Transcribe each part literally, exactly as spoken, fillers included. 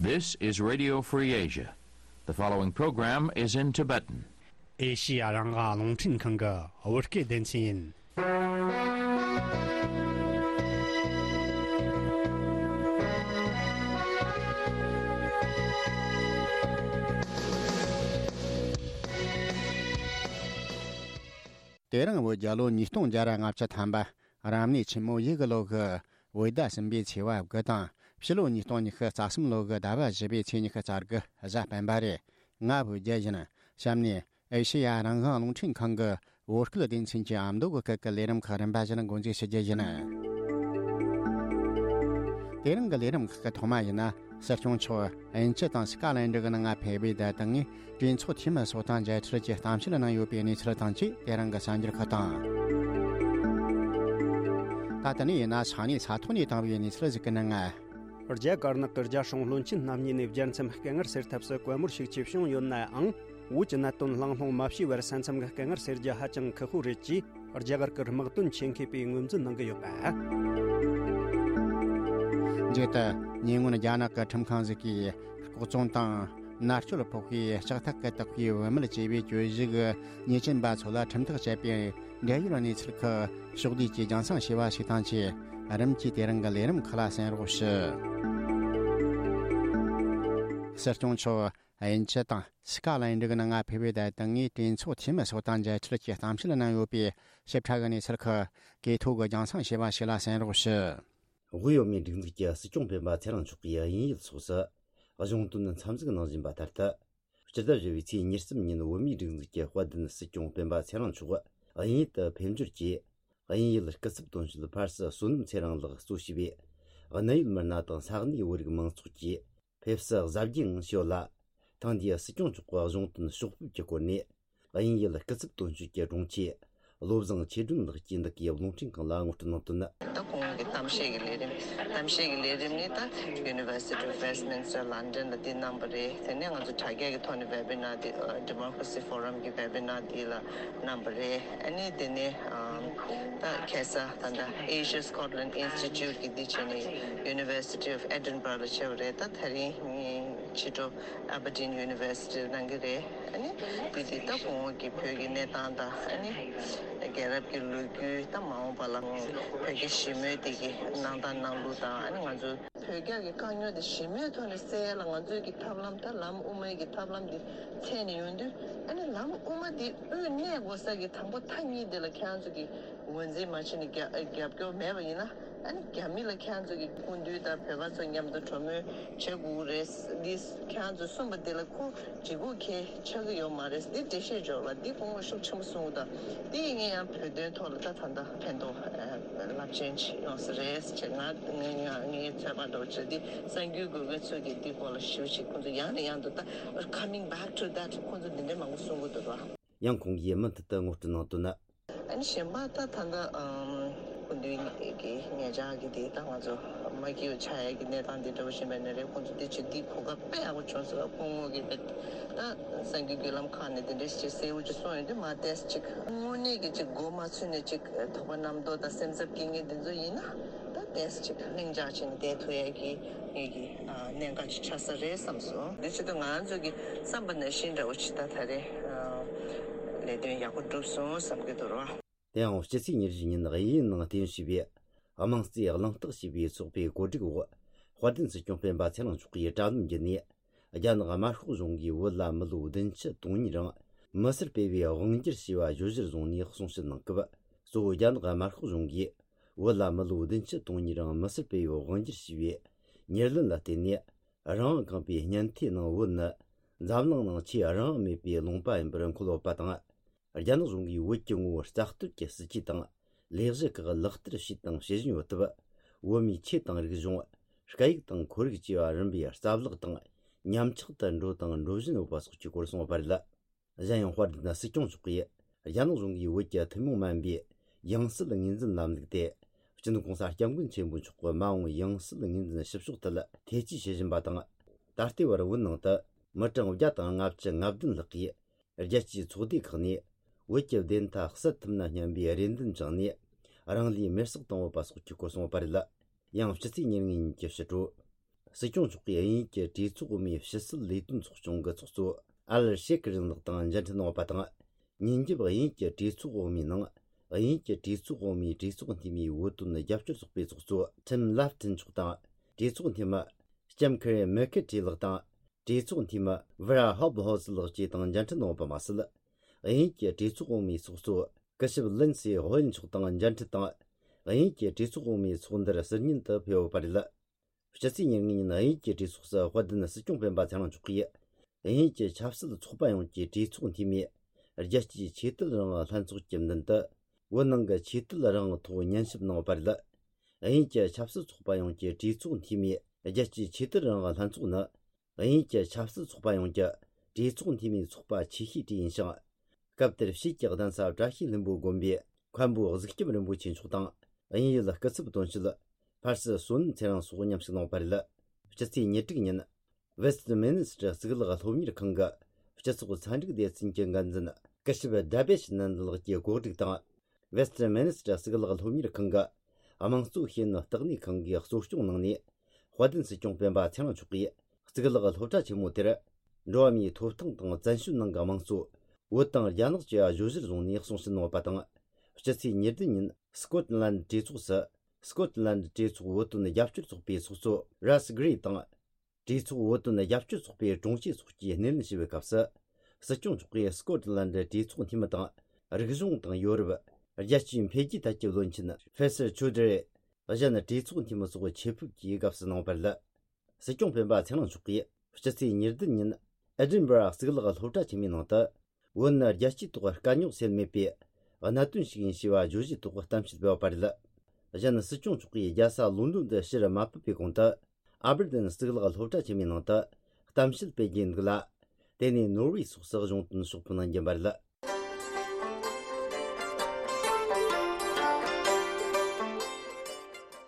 This is Radio Free Asia. The following program is in Tibetan. ཨེ་ཤི་ཡ་རང་དབང་རླུང་འཕྲིན་ཁང་གི་བོད་སྐད་སྡེ་ཚན་ཡིན། དེ་རིང་བོད་རྒྱལ་ལོ་ཉིས་སྟོང་བརྒྱ་ར་ལྔ་བཅུ་ཐམ་པ། རབ་གནས་ཆེན་མོ་ཡོས་གི་ལོ་གི་བོད་ཟླ་གསུམ་པའི་ཚེས་པ་དགུ་དང་། ཕྱི་ལོ་ཉིས་སྟོང་ཉི་ཤུ་རྩ་གསུམ་ལོ་གི་ཟླ་བ་བཞི་པའི་ཚེས་ཉི་ཤུ་རྩ་དགུ་གཟའ་སྤེན་པ་རེད། ང་བོད་རྒྱལ་ཡིན། གཤམ་ནས་ཨེ་ཤེ་ཡ་རང་དབང་རླུང་འཕྲིན་ཁང་གི་བོད་སྐད་སྡེ་ཚན་གྱི་ཨ་མདོ་གི་སྐད་ཀྱི་ལས་རིམ་ཁག་རིམ་པ་བཞིན་འགོ་འཛུགས་ཞུ་རྒྱུ་ཡིན། དེ་རིང་གི་ལས་རིམ་ཁག་གི་ཐོག་མ་ཡིན་ན། སྲིད་སྐྱོང་མཆོག་དབྱིན་ཇི་དང་སི་ཀ་ལན་ཌི་གི་ནང་ང་ཕེབས་པའི་བརྡ་བཏང་ངས་གྲོས་ཚོགས་འཐུས་མི་ཚོ་དང་མཇལ་འཕྲད་ཀྱི་གཏམ་བཤད་གནང་ཡོད་པའི་གནས་ཚུལ་དང་བཅས། དེ་རིང་གི་གསར་འགྱུར་ཁག་དང་། ད་ལྟ་ནས་ཡིན་ན་ས་གནས་ས་ཐོག་ནས་བཏང་བའི་གནས་ཚུལ་ཞིག་གི་ནང་ང་། རྒྱ་དཀར་ནག་གི་རྒྱ་སྲུང་བློན་ཆེན་རྣམ་གཉིས་ནས་རྒྱལ་མཚམས་སྐད་ངར་སེལ་ཐབས་སུ་བཀའ་མོལ་ཤུགས་ཆེ་བྱུང་ཡོད་ནའང་། བོད་ཀྱི་གནད་དོན་གླེང་སློང་མ་བྱས་པར་ས་མཚམས་ཀྱི་སྐད་ངར་སེལ་རྒྱུ་ཧ་ཅང་ཁག་པོ་རེད་ཅེས་རྒྱ་གར་གྱི་དམག་དོན་ཆེད་མཁས་པས་ངོས་འཛིན་གནང་གི་ཡོད་པ། རྗེས་དུ་ཉེ་སྔོན་རྒྱ་ནག་གི་ཁྲིམས་ཁང་ཞིག་གིས་ལྐོག་བཙོང་དང་མནར་གཅོད་ཕོག་པའི་ལྕགས་ཐག་གི་བཏགས་པའི་བུད་མེད་ཅེས་པའི་གྱོད་གཞི་གི་ཉེས་ཅན་པ་ཚོ་ལ་ཁྲིམས་ཐག་བཅད་པའི་འབྲེལ་ཡོད་གནས་ཚུལ་ཁག་ཕྱོགས་བསྡུས་ཀྱིས་རྒྱང་སྲིང་བྱས་པ་ཞིག་དང་བཅས། རིམ་གྱིས་དེ་རིང་གི་ལས་རིམ་ཁག་ལ་གསན་རོགས་ཞུ། སྲིད་སྐྱོང་མཆོག་དབྱིན་ཇི་དང་སི་ཀ་ལན་ཌི་གི་ནང་ང་ཕེབས་པའི་བརྡ་བཏང་ངས་གྲོས་ཚོགས་འཐུས་མི་ཚོ་དང་མཇལ་འཕྲད་ཀྱི་གཏམ་བཤད་གནང་ཡོད་པའི་ཞིབ་ཕྲ་གི་གནས་ཚུལ་ཁག་གི་ཐོག་གི་རྒྱང་སྲིང་བྱས་པ་ཞིག་ལ་གསན་རོགས་ཞུ། དབུས་བོད་མིའི་སྒྲིག་འཛུགས་ཀྱི་སྲིད་སྐྱོང་སྤེན་པ་ཚེ་རིང་མཆོག་གིས་དབྱིན་ཡུལ་སོགས་སུ་གཞུང་དོན་འཚམས་གཟིགས་གནང་བཞིན་པ་ལྟར་དུ། སྤྱི་ཟླ་བཞི་པའི་ཚེས་ཉེར་གསུམ་ཉིན་བོད་མིའི་སྒྲིག་འཛུགས་ཀྱི་དཔལ་ལྡན་སྲིད་སྐྱོང་སྤེན་པ་ཚེ་རིང་མཆོག་དབྱིན་ཡུལ་དུ་ཕེབས་འབྱོར་གྱིས། དབྱིན་ཡུལ་སྐུ་ཚབ་དོན་གཅོད་ཕར་སི་བསོད་ནམས་ཚེ་རིང་ལགས་གཙོ་བྱས་པའི་གནད་ཡོད་མི་སྣ་དང་ས་གནས་བོད་རིགས་མང་ཚོགས་ཀྱིས་ཕེབས་བསུ་གཟབ་རྒྱས་ངང་ཞུས་ཡོད་ལ། ཐེངས་འདིའི་སྲིད་སྐྱོང་མཆོག་གི་གཞུང་དོན་ཕྱོགས་ཕེབས་ཀྱི་སྐོར་ནས། དབྱིན་ཡུལ་སྐུ་ཚབ་དོན་གཅོད་ཀྱི་དྲུང་ཆེ་བློ་བཟང་ཆོས་སྒྲོན་ལགས་ཀྱིས་འདི་གའི་རླུང་འཕྲིན་ཁང་ལ་ངོ་སྤྲོད་གནང་དོན། ད་གོང་གི་གཏམ་བཤད་ཀྱི་ལས་རིམ། གཏམ་བཤད་ཀྱི་ལས་རིམ་ནི་ད་University of Westminster London ལ་འདི་གནང་བ་རེད། དེ་ནས་ང་ཚོ་དྲ་རྒྱ་གི་ཐོག་ནས་webinar འདི་Democracy Forum གི་webinar འདི་ལ་གནང་བ་རེད། ཨ་ནི་དེ་ནས་ད་ཁ་སང་ད་ལྟ་Asia Scotland Institute གི་འདི་བྱས་ནས་University of Edinburgh ལ་བྱས་པ་རེད། ད་དེ་རིང་ཕྱི་དྲོ་Aberdeen University གནང་གི་རེད། ཨ་ནི་བོད་འདི་ད་གོང་འོག་གི་བོད་ཀྱི་གནས་སྟངས་དང་། ཨ་ནི་རྒྱལ་རབས་ཀྱི་ལོ་རྒྱུས་དང་། མ་འོངས་པ་ལ་བོད་རྒྱ་ཞི་མོལ་དེ་གི་གནང་སྟངས་གནང་ལུགས་དང་། ཨ་ནི་ང་ཚོ་བོད་རྒྱ་གི་དཀའ་རྙོག་དེ་ཞི་མོལ་ཐོག་ནས་སེལ་ཡ་ལ་ང་ཚོའི་གི་ཐབས་ལམ། ད་ལམ་དབུ་མའི་གི་ཐབས་ལམ་དེ་འཚོལ་ནས་ཡོང་དུས། ཨ་ནི་ལམ་དབུ་མ་དེ་དབུས་གནས་དགོས་ས་གི་དང་པོ་མཐའ་གཉིས་དེ་ལ་ཁྱེད་རང་ཚོ་གི་ངོས་འཛིན་མ་བྱས་ནས་རྒྱབ་རྒྱབ་སྐྱོར་མེད་པ་ཡིན་ན། ཨ་ནི་རྒྱ་མི་ལ་ཁྱེད་རང་ཚོ་གི་སྐུ་མདུན་དང་བོད་པ་ཚོ་མཉམ་དུ་གྲོས་མོལ་བྱེད་དགོས་རེད། འདི་ཁྱེད་རང་ཚོས་གསུངས་པ་འདི་ལ་ཁོ་ལྗིད་ཁོག་གང་ཡང་ཆགས་ཀྱི་ཡོད་མ་རེད། འདི་འགྲེལ་བཤད་འཇོག་ལ་འདི་སྐུ་ངོ་ཤུགས་ཆེན་པོ་གསུང་གི་འདུག་འདི་ངས་ཡང་བོད་དོན་ཐོག་ལ་ད་ད་ལྟ་ཕན་ཐོགས་རླབས་ཆེན་ཅིག་ཡོང་ས་རེད་ཅེས། ང་ངས་ངས་ངའི་ཚོད་དཔག་འདྲ་བོ་བྱས། འདི་གསར་འགྱུར་འགོད་མཁན་ཚོས་ཀྱིས་འདི་སྐོར་ལ་ཞེ་པོ་ཅིག་ཁོང་ཚོ་ཡང་ནས་ཡང་དུ་ད་coming back to that ཁོང་ཚོ་འདི་འདྲའི་མང་པོ་གསུང་གི་འདུག་ར། ཡང་ཁོང་གིས་མུ་མཐུད་དུ་ངོ་སྤྲོད་གནང་དོན། ཨ་ནི་གཞན་པ་ད་ད་ལྟ་ཨམ་སྐུ་མདུན་གྱི་ཉེ་ཆར་གྱི་དེ་ད་ང་ཚོ་མ་སྐྱིད་པ་ཆགས་ཡ་གི་གནས་སྟངས་དེ་འདྲ་བོ་ཞིག་མེད་ན་རེད། ཁོང་ཚོ་དེ་ཅིག་འདི་གོ་སྐབས་དཔེ་ཡག་པོ་བྱུང་སོང་། སྐུ་ངོ་གིས་དཔེ་ད་གསར་འགྱུར་བརྒྱུད་ལམ་ཁག་ནས་དེ་འདྲ་ཞིག་གསལ་པོ་ཅིག་གསུངས་ཡོང་དུས། མ་ཏོག་ཙམ་ཅིག་དངོས་གནས་ཀྱི་ཅིག་མགོ་མ་ཚོས་ནས་ཅིག་དོགས་པ་རྣམ་རྟོག་དང་སེམས་འཚབ་སྐྱེ་མཁན་དེ་ཚོ་ཡིན་ན། ད་ཏོག་ཙམ་ཅིག་ལྷིང་འཇགས་བྱས་ནས་བསྡད་ཐུབ་ཡ་གི་ངེད་ཀྱི་ཨ་གནད་འགག་ཅིག་ཆགས་ས་རེད་བསམ་སོང་། འདི་ཆེད་དུ་ང་ཚོ་གི་བསམ་པ་ནང་བཞིན་འདྲ་བོ་ཅིག་ད་ད་རེས་ཨ་ལས་དོན་ཡག་པོ་འགྲུབ་སོང་བསམ་གྱི་འདུག་ར། དེ་ཡང་སྤྱི་ཚེས་ཉེར་བཞི་ཉིན་དབྱིན་ཡུལ་ནང་རྟེན་གཞི་བྱས་པའི་དམངས་གཙོའི་གླེང་སྟེགས་ཞེས་པའི་ཚོགས་པའི་གོ་སྒྲིག་འོག་དཔལ་ལྡན་སྲིད་སྐྱོང་སྤེན་པ་ཚེ་རིང་མཆོག་གིས་དྲ་ལམ་བརྒྱུད་ནས། རྒྱ་ནག་དམར་ཤོག་གཞུང་གིས་བོད་ལ་མི་ལོ་བདུན་ཅུ་དོན་གཉིས་རིང་མི་སེར་སྤེལ་བའི་དབང་སྒྱུར་བྱས་པ་བརྗོད་གཞིར་བཟུང་ནས་གསུང་བཤད་གནང་སྐབས། གཙོ་བོ་རྒྱ་ནག་དམར་ཤོག་གཞུང་གིས་བོད་ལ་མི་ལོ་བདུན་ཅུ་དོན་གཉིས་རིང་མི་སེར་སྤེལ་བའི་དབང་སྒྱུར་བྱས་པའི་ཉེར་ལེན་ལ་བརྟེན་ནས། རང་དབང་ཁེངས་པའི་སྙན་ཐོས་ནང་བོད་ནི་འཛམ་གླིང་ནང་ཆེས་རང་དབང་མེད་པའི་ལུང་པ་ཡིན་པར་འཁོད་ཡོད་པ་དང་། རྒྱ་ནག་གཞུང་གིས་བོད་ཀྱི་ངོ་བོ་རྩ་གཏོར་གྱི་སྲིད་ཇུས་དང་ལས་གཞི་ཁག་ལག་བསྟར་བྱས་དང་བྱེད་བཞིན་ཡོད་སྟབས། བོད་མིའི་ཆོས་དང་རིག་གཞུང་། སྐད་ཡིག་དང་ཁོར་ཡུག་བཅས་པ་རིམ་པས་རྩ་བརླག་དང་ཉམས་ཆག་ཏུ་འགྲོ་དང་འགྲོ་བཞིན་ཡོད་པ་སོགས་ཀྱི་སྐོར་གསུངས་པ་རེད། གཞན་ཡང་དཔལ་ལྡན་སྲིད་སྐྱོང་མཆོག་གིས་རྒྱ་ནག་གཞུང་གིས་བོད་ཀྱི་ཐུན་མོང་མ་ཡིན་པའི་ཡང་སྲིད་ངོས་འཛིན་ལམ་ལུགས་དེ་སྤྱི་ནོར་གོང་ས་སྐྱབས་མགོན་ཆེན་པོ་མཆོག་གི་མ་འོངས་ཡང་སྲིད་ངོས་འཛིན་ཞིབ་ཕྱོགས་ཐད་ཐེ་བྱུས་བྱེད་བཞིན་པ་དང་། ད་ལྟའི་བར་བོད་ནང་དུ་མི་གྲངས་བརྒྱ་དང་ལྔ་བཅུ་ང་བདུན་ལྷག་གིས་རྒྱལ་སྤྱིའི་ཚོགས་སྡེ་ཁག་ནས་བོད་ཀྱི་བདེན་མཐའ་གསལ་ཐུབ་ན་སྙམ་པའི་རེ་འདུན་བཅངས་ནས་རང་ལུས་མེར་སྲེག་བཏང་ཡོད་པ་སོགས་ཀྱི་སྐོར་གསུངས་པ་རེད། ཡང་སྤྱི་ཚེས་ཉེར་ལྔ་ཉིན་གྱི་ཕྱི་དྲོ། སྲིད་སྐྱོང་མཆོག་གིས་དབྱིན་ཡུལ་གྱི་གྲོས་ཚོགས་འོག་མའི་ཕྱི་སྲིད་ལས་དོན་ཚོགས་ཆུང་གི་ཚོགས་གཙོ་ཨལ་ཤེ་ཁི་རིང་ལགས་དང་མཇལ་འཕྲད་གནང་བ་དང་། ཉིན་རྒྱབ་དབྱིན་ཡུལ་གྱི་གྲོས་ཚོགས་འོག་མའི་ནང་། དབྱིན་ཡུལ་གྱི་གྲོས་ཚོགས་འོག་མའི་གྲོས་ཚོགས་འཐུས་མིའི་བོད་དོན་རྒྱབ་སྐྱོར་ཚོགས་པའི་ཚོགས་གཙོ་ཁྲིམ་ལབ་ཐིན་མཆོག་དང་། གྲོས་ཚོགས་འཐུས་མི་ལྕམ་ཁེ་རེ་མེ་ཁེ་ཁྲི་ལགས་དང་། གྲོས་ཚོགས་འཐུས་མི་ཝེ་ར་ཧོབ་ཧོ་སི་ལགས་བཅས་དང་མཇལ་འཕྲད་གནང་བ་མ་ཟད། དབྱིན་ཡུལ་གྱི་གྲོས་ཚོགས་འོག་མའི་ཚོགས་གཙོ་སྐུ་ཞབས་ལིན་སི་ཧོ་ཡན་མཆོག་དང་མཇལ་འཕྲད་དང་། དབྱིན་ཡུལ་གྱི་གྲོས་ཚོགས་འོག་མའི་ཚོགས་འདུར་ཟུར་ཉན་དུ་ཕེབས་ཡོད་པ་རེད། སྤྱི་ཚེས་ཉེར་ལྔ་ཉིན་དབྱིན་ཡུལ་གྱི་གྲོས་ཚོགས་སུ་དཔལ་ལྡན་སྲིད་སྐྱོང་སྤེན་པ་ཚེ་རིང་མཆོག་གིས། དབྱིན་ཡུལ་གྱི་ཆབ་སྲིད་ཚོགས་པ་ཡོངས་ཀྱི་གྲོས་ཚོགས་འཐུས་མིས། རྒྱལ་སྤྱིའི་ཆོས་དད་རང་དབང་ལྷན་ཚོགས་ཀྱི་མདུན་དུ། བོད་ནང་གི་ཆོས་དད་རང་དབང་ཐོག་ཉན་ཞིབ་གནང་བ་རེད། དབྱིན་ཡུལ་གྱི་ཆབ་སྲིད་ཚོགས་པ་ཡོངས་ཀྱི་གྲོས་ཚོགས་འཐུས་མིས། རྒྱལ་སྤྱིའི་ཆོས་དད་རང་དབང་ལྷན་ཚོགས་ནི། དབྱིན་ཡུལ་གྱི་ཆབ་སྲིད་ཚོགས་པ་ཡོངས་ཀྱི་གྲོས་ཚོགས་འཐུས་མིའི་ཚོགས་པ་ཆེ་ཤོས་དེ་ཡིན་ཞིང་། སྐབས་དེར་ཕྱིས་ཀྱི་གདན་ས་བཀྲ་ཤིས་ལྷུན་པོ་དགོན་པའི་མཁན་པོ་གཟུགས་སྐྱབས་རིན་པོ་ཆེ་མཆོག་དང་། དབྱིན་ཡུལ་སྐུ་ཚབ་དོན་གཅོད་ཕར་སི་བསོད་ནམས་ཚེ་རིང་སོགས་མཉམ་ཞུགས་གནང་བ་རེད། སྤྱི་ཚེས་ཉེར་དྲུག་ཉིན། ཝེ་སྟི་མིན་སི་ཊར་གཙུག་ལག་སློབ་གཉེར་ཁང་གི་སྤྱི་ཚོགས་ཚན་རིག་སྡེ་ཚན་གྱི་འགན་འཛིན་སྐུ་ཞབས་ཌ་བེ་ཤི་ནན་ལགས་ཀྱིས་གོ་སྒྲིག་དང་། ཝེ་སྟི་མིན་སི་ཊར་གཙུག་ལག་སློབ་གཉེར་ཁང་གི་དམངས་གཙོ་ཤེས་ཡོན་ལྟེ་གནས་ཁང་གིས་གཙོ་སྐྱོང་གནང་ནས། དཔལ་ལྡན་སྲིད་སྐྱོང་སྤེན་པ་ཚེ་རིང་མཆོག་གིས་གཙུག་ལག་སློབ་གྲྭ་ཆེན་མོ་དེར། འགྲོ་བ་མིའི་ཐོབ་ཐང་དང་བཙན་བྱོལ་ནང་གི་དམངས་གཙོ། བོད་དང་རྒྱ་ནག་བཅས་གཞོལ་བཞུད་བཟུང་ནས་གསུང་བཤད་གནང་བ་དང་། སྤྱི་ཚེས་ཉེར་བདུན་ཉིན་སི་ཀོ་ཊི་ལན་ཌི་གྲོས་ཚོགས་སུ། སི་ཀོ་ཊི་ལན་ཌི་གྲོས་ཚོགས་བོད་དོན་རྒྱབ་སྐྱོར་ཚོགས་པའི་ཚོགས་གཙོ་རཱ་སི་གྷི་རི་དང་། གྲོས་ཚོགས་བོད་དོན་རྒྱབ་སྐྱོར་ཚོགས་པའི་དྲུང་ཆེ་སོགས་ཀྱིས་སྣེ་ལེན་ཞུས་པའི་སྐབས་སུ། སྲིད་སྐྱོང་མཆོག་གིས་སི་ཀོ་ཊི་ལན་ཌི་གྲོས་ཚོགས་འཐུས་མི་དང་། རིག་གཞུང་དང་ཡོ་རོབ། རྒྱལ་སྤྱིའི་འཕེལ་རྒྱས་ཐད་ཀྱི་བློན་ཆེན་ཕེ་སར་ཆོ་དི་རི། གཞན་གྲོས་ཚོགས་འཐུས་མི་སོགས་ཆེད་ཕེབས་ཀྱིས་དགའ་བསུ་གནང་བ་རེད། སྲིད་སྐྱོང་སྤེན་པ་ཚེ་རིང་མཆོག་གིས་སྤྱི་ཚེས་ཉེར་བདུན་ཉིན་ཨེ་ཌིན་བྷ་ར་གཙུག་ལག་སློབ་གྲྭ་ཆེན་མོའི་ནང་དུ། བོད་ནི་རྒྱལ་སྤྱིའི་ཐོག་དཀའ་རྙོག་སེལ་མེད་པའི་གནད་དོན་ཞིག་ཡིན་ཞེས་པ་བརྗོད་གཞིའི་ཐོག་གཏམ་བཤད་སྤེལ་བ་རེད། གཞན་སྲིད་སྐྱོང་མཆོག་གིས་རྒྱལ་ས་ལོན་ཌོན་དུ་ཕྱིར་མ་ཕེབས་པའི་གོང་དུ། ཨ་བར་ཌེན་གཙུག་ལག་སློབ་གྲྭ་ཆེན་མོའི་ནང་དུ་གཏམ་བཤད་སྤེལ་རྒྱུའི་འདུག་ལ། དེ་ནས་ནོར་ཝེ་སོགས་སུ་གཞུང་དོན་ཕྱོགས་ཕེབས་གནང་རྒྱུ་ཡིན་པ་རེད།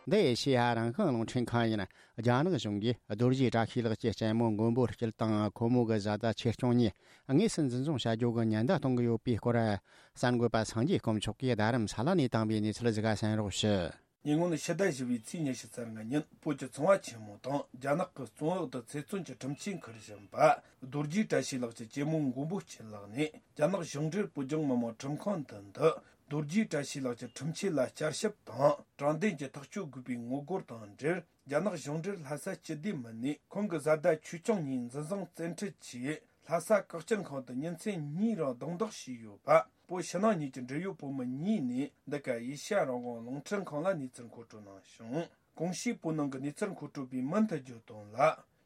འདི་ཨེ་ཤེ་ཡ་རང་དབང་རླུང་འཕྲིན་ཁང་ཡིན། རྒྱ་ནག་གཞུང་གིས་རྡོ་རྗེ་བཀྲ་ཤིས་ལགས་ཀྱི་གཅེན་མོ་མགོན་པོ་སྐྱིད་དང་ཁོ་མོ་གི་བཟའ་ཟླ་ཆོས་སྐྱོང་གཉིས་དངོས་སུ་འཛིན་བཟུང་བྱ་རྒྱུ་གི་ཉེན་བརྡ་གཏོང་གི་ཡོད་པའི་སྐོར། གསར་འགོད་པ་སངས་རྒྱས་དཀོན་མཆོག་གིས་རྡ་རམ་ས་ལ་ནས་བཏང་བའི་གནས་ཚུལ་ཞིག་གསན་རོགས་ཞུ། ཉེ་སྔོན་ཕྱི་ཟླ་བཞི་པའི་ཚེས་ཉི་ཤུ་རྩ་ལྔ་ཉིན་བོད་ཀྱི་ཚོང་བ་ཆེན་མོ་དང་རྒྱ་ནག་གི་བཙོན་འོག་ཏུ་ཚེ་བཙོན་གྱི་ཁྲིམས་ཆད་འཁུར་བཞིན་པ་རྡོ་རྗེ་བཀྲ་ཤིས་ལགས་ཀྱི་གཅེན་མོ་མགོན་པོ་སྐྱིད་ལགས་ནས། རྒྱ་ནག་གཞུང་འབྲེལ་བོད་ལྗོངས་མི་དམངས་ཁྲིམས་ཁང་མདུན་དུ་རྡོ་རྗེ་བཀྲ་ཤིས་ལགས་ཀྱི་ཁྲིམས་ཆད་ལ་བསྐྱར་ཞིབ་དང་དྲང་བདེན་གྱི་ཐག་གཅོད་དགོས་པའི་ངོ་རྒོལ་དང་འབྲེལ། རྒྱ་ནག་གཞུང་འབྲེལ་ལྷ་ས་སྤྱི་བདེ་མི་སྣས་ཁོང་གི་བཟའ་ཟླ་ཆོས་སྐྱོང་གཉིས་འཛིན་བཟུང་བཙན་ཁྲིད་ཀྱིས་ལྷ་ས་བཀག་སྐྱིལ་ཁང་དུ་ཉིན་མཚན་གཉིས་རིང་རྡུང་རྡེག་བྱས་ཡོད་པ། བོད་ཕྱི་ནང་གཉིས་ཀྱི་འབྲེལ་ཡོད་བོད་མི་གཉིས་ནས་འདི་ག་ཨེ་ཤ་ཡ་རང་དབང་རླུང་འཕྲིན་ཁང་ལ་གནས་ཚུལ་མཁོ་སྤྲོད་གནང་བྱུང་། གོང་ཞུས་བོད་ནང་གི་གནས་ཚུལ་མཁོ་སྤྲོད་པས་མུ་མཐུད་བརྗོད་དོན་ལ།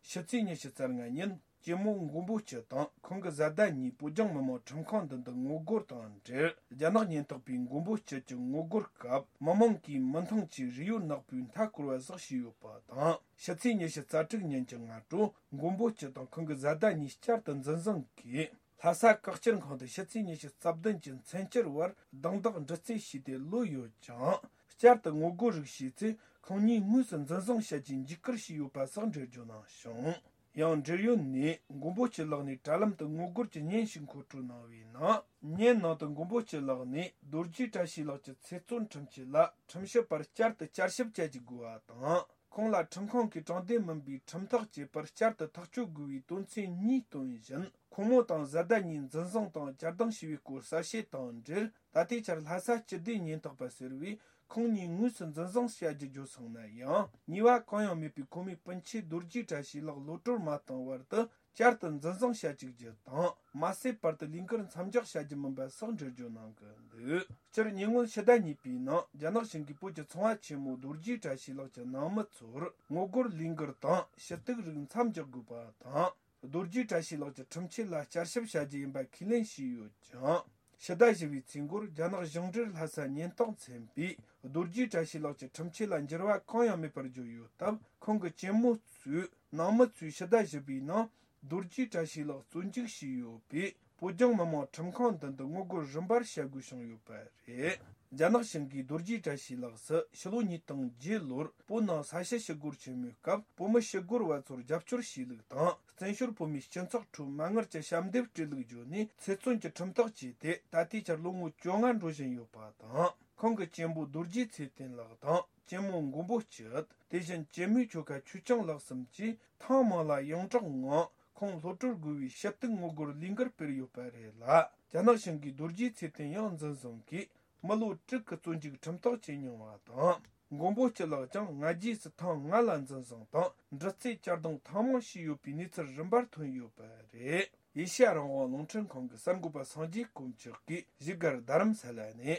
ཕྱི་ཚེས་ཉི་ཤུ་རྩ་ལྔ་ཉིན་གཅེན་མོ་མགོན་པོ་སྐྱིད་དང་ཁོང་གི་བཟའ་ཟླ་གཉིས་བོད་ལྗོངས་མི་དམངས་ཁྲིམས་ཁང་མདུན་དུ་ངོ་རྒོལ་དང་འབྲེལ། རྒྱ་ནག་ཉེན་རྟོག་པས་མགོན་པོ་སྐྱིད་ཀྱི་ངོ་རྒོལ་སྐབས་མི་མང་གིས་མི་འདང་གིས་རས་ཡོལ་ནག་པོའི་མཐའ་སྐོར་བ་ཟིག་བྱས་ཡོད་པ་དང་། ཕྱི་ཚེས་ཉི་ཤུ་རྩ་དྲུག་ཉིན་གྱི་སྔ་དྲོ་མགོན་པོ་སྐྱིད་དང་ཁོང་གི་བཟའ་ཟླ་གཉིས་བསྐྱར་དུ་འཛིན་བཟུང་གིས། ལྷ་ས་བཀག་སྐྱིལ་ཁང་དུ་ཕྱི་ཚེས་ཉི་ཤུ་རྩ་བདུན་གྱི་མཚན་བསྐྱར་བར་རྡུང་རྡེག་འདྲི་རྩད་བྱས་ཏེ་ལོས་ཡོད་ཀྱང་། བསྐྱར་དུ་ངོ་རྒོལ་རིགས་བྱས་ཚེ་ཁོང་གཉིས་དངོས་སུ་འཛིན་བཟུང་བྱ་རྒྱུའི་འཇིགས་སྐུལ་བྱས་ཡོད་པ་སོགས་འགྲེལ་བརྗོད་གནང་བྱུང་། ཡང་འབྲེལ་ཡོད་ནས་མགོན་པོ་སྐྱིད་ལགས་ནས་དྲ་ལམ་དུ་ངོ་རྒོལ་གྱི་བརྙན་ཞིག་མཁོ་སྤྲོད་གནང་བའི་ནང་། བརྙན་ནང་དུ་མགོན་པོ་སྐྱིད་ལགས་ནས་རྡོ་རྗེ་བཀྲ་ཤིས་ལགས་ཀྱི་ཚེ་བཙོན་ཁྲིམས་ཆད་ལ་ཁྲིམས་ཞིབ་པར་བསྐྱར་དུ་བསྐྱར་ཞིབ་བྱ་རྒྱུ་དགོས་པ་དང་། ཁོང་ལ་ཁྲིམས་ཁང་གིས་དྲང་བདེན་མིན་པའི་ཁྲིམས་ཐག་བཅད་པར་བསྐྱར་དུ་ཐག་གཅོད་དགོས་པའི་དོན་ཚན་གཉིས་བཏོན་བཞིན། ཁོང་མོ་དང་བཟའ་ཟླ་གཉིས་འཛིན་བཟུང་དང་གྱར་བདག་བྱས་པའི་སྐོར་གསལ་བཤད་དང་འབྲེལ། ད་ལྟའི་ཆར་ལྷ་ས་སྤྱི་བདེ་ཉེན་རྟོག་པ་ཟེར་བས་ཁོང་གཉིས་དངོས་སུ་འཛིན་བཟུང་བྱ་རྒྱུ་བརྗོད་སོང་ན་ཡང་། ཉེས་པ་གང་ཡང་མེད་པའི་ཁོ་མོའི་སྤུན་མཆེད་རྡོ་རྗེ་བཀྲ་ཤིས་ལགས་གློད་གྲོལ་མ་བཏང་བར་དུ། བསྐྱར་དུ་འཛིན་བཟུང་བྱ་བཅུག་རྒྱུ་དང་། མ་ཟད་བར་དུ་ལས་འགུལ་མཚམས་འཇོག་བྱ་རྒྱུ་མིན་པ་སོགས་འགྲེལ་བརྗོད་གནང་གི་འདུག་སྤྱིར་ཉེ་སྔོན་ཕྱི་ཟླ་གཉིས་པའི་ནང་རྒྱ་ནག་གཞུང་གིས་བོད་ཀྱི་ཚོང་བ་ཆེན་མོ་རྡོ་རྗེ་བཀྲ་ཤིས་ལགས་ཀྱི་ནང་མི་ཚོར་ངོ་རྒོལ་ལས་འགུལ་དང་ཞུ་གཏུག་རིགས་མཚམས་འཇོག་དགོས་པ་དང་། རྡོ་རྗེ་བཀྲ་ཤིས་ལགས་ཀྱི་ཁྲིམས་ཆད་ལ་བསྐྱར་ཞིབ་བྱ་རྒྱུ་ཡིན་པ་ཁས་ལེན་བྱས་ཡོད་ཀྱང་། ཕྱི་ཟླ་བཞི་པའི་ཚེས་འགོར་རྒྱ་ནག་གཞུང་འབྲེལ་ལྷ་ས་ཉེན་རྟོག་མཚན་པས་རྡོ་རྗེ་བཀྲ་ཤིས་ལགས་ཀྱི་ཁྲིམས་ཆད་ལ་འགྱུར་བ་གང་ཡང་མེད་པར་བརྗོད་ཡོད་སྟབས། ཁོང་གི་གཅེན་མོ་གཙོས་ནང་མི་ཚོས་ཕྱི་ཟླ་བཞི་པའི་ནང་རྡོ་རྗེ་བཀྲ་ཤིས་ལགས་བཙོན་འཇུག་བྱས་ཡོད་པས། བོད་ལྗོངས་མི་དམངས་ཁྲིམས་ཁང་མདུན་དུ་ངོ་རྒོལ་རིམ་པར་བྱ་དགོས་བྱུང་ཡོད་པ་རེད། རྒྱ་ནག་གཞུང་གིས་རྡོ་རྗེ་བཀྲ་ཤིས་ལགས་སུ་ཕྱི་ལོ་ཉིས་སྟོང་བརྒྱད་ལོར་བོད་ནང་ས་ཞི་ཞི་རྒོལ་ཆེན་མོའི་སྐབས་བོད་མི་ཞི་རྒོལ་བ་ཚོར་རྒྱབ་སྐྱོར་བྱས་ལུགས་དང་། བཙན་བྱོལ་བོད་མིའི་སྤྱི་ཚོགས་ཁྲོད་མ་དངུལ་གྱི་ཞབས་འདེབས་སྤྲད་ལུགས་བརྗོད་ནས་ཚེ་བཙོན་གྱི་ཁྲིམས་ཐག་བཅད་དེ་ད་ལྟའི་ཆར་ལོ་ངོ་བཅོ་ལྔ་འགྲོ་བཞིན་ཡོད་པ་དང་། ཁོང་གི་གཅེན་པོ་རྡོ་རྗེ་ཚེ་བརྟན་ལགས་དང་ གཅེན་མོ་མགོན་པོ་སྐྱིད། དེ་བཞིན་གཅེན་མོའི་ཁྱོ་ག་ཆོས་སྐྱོང་ལགས་གསུམ་གྱིས་ཐེངས་མང་ལ་ཡོངས་གྲགས་ངང་ཁོང་གློད་གྲོལ་དགོས་པའི་ཞུ་གཏུག་ངོ་རྒོལ་ལས་འགུལ་སྤེལ་ཡོད་པ་རེད་ལ། རྒྱ་ནག་གཞུང་གི་རྡོ་རྗེ་ཚེ་བརྟན་ཡང་འཛིན་བཟུང་གིས་མི་ལོ་དྲུག་གི་བཙོན་འཇུག་ཁྲིམས་ཐག་བཅད་མྱོང་བ་དང་། མགོན་པོ་སྐྱིད་ལགས་ཀྱང་སྔ་རྗེས་སུ་ཐེངས་ལྔ་ལ་འཛིན་བཟུང་དང་། འདྲི་རྩད་བསྐྱར་ལྡང་ཐེངས་མང་བྱས་ཡོད་པའི་གནས་ཚུལ་རིམ་པར་ཐོན་ཡོད་པ་རེད། ཨེ་ཤ་ཡ་རང་དབང་རླུང་འཕྲིན་ཁང་གི་གསར་འགོད་པ་སངས་རྒྱས་དཀོན་མཆོག་གིས་བཞུགས་སྒར་རྡ་རམ་ས་ལ་ནས།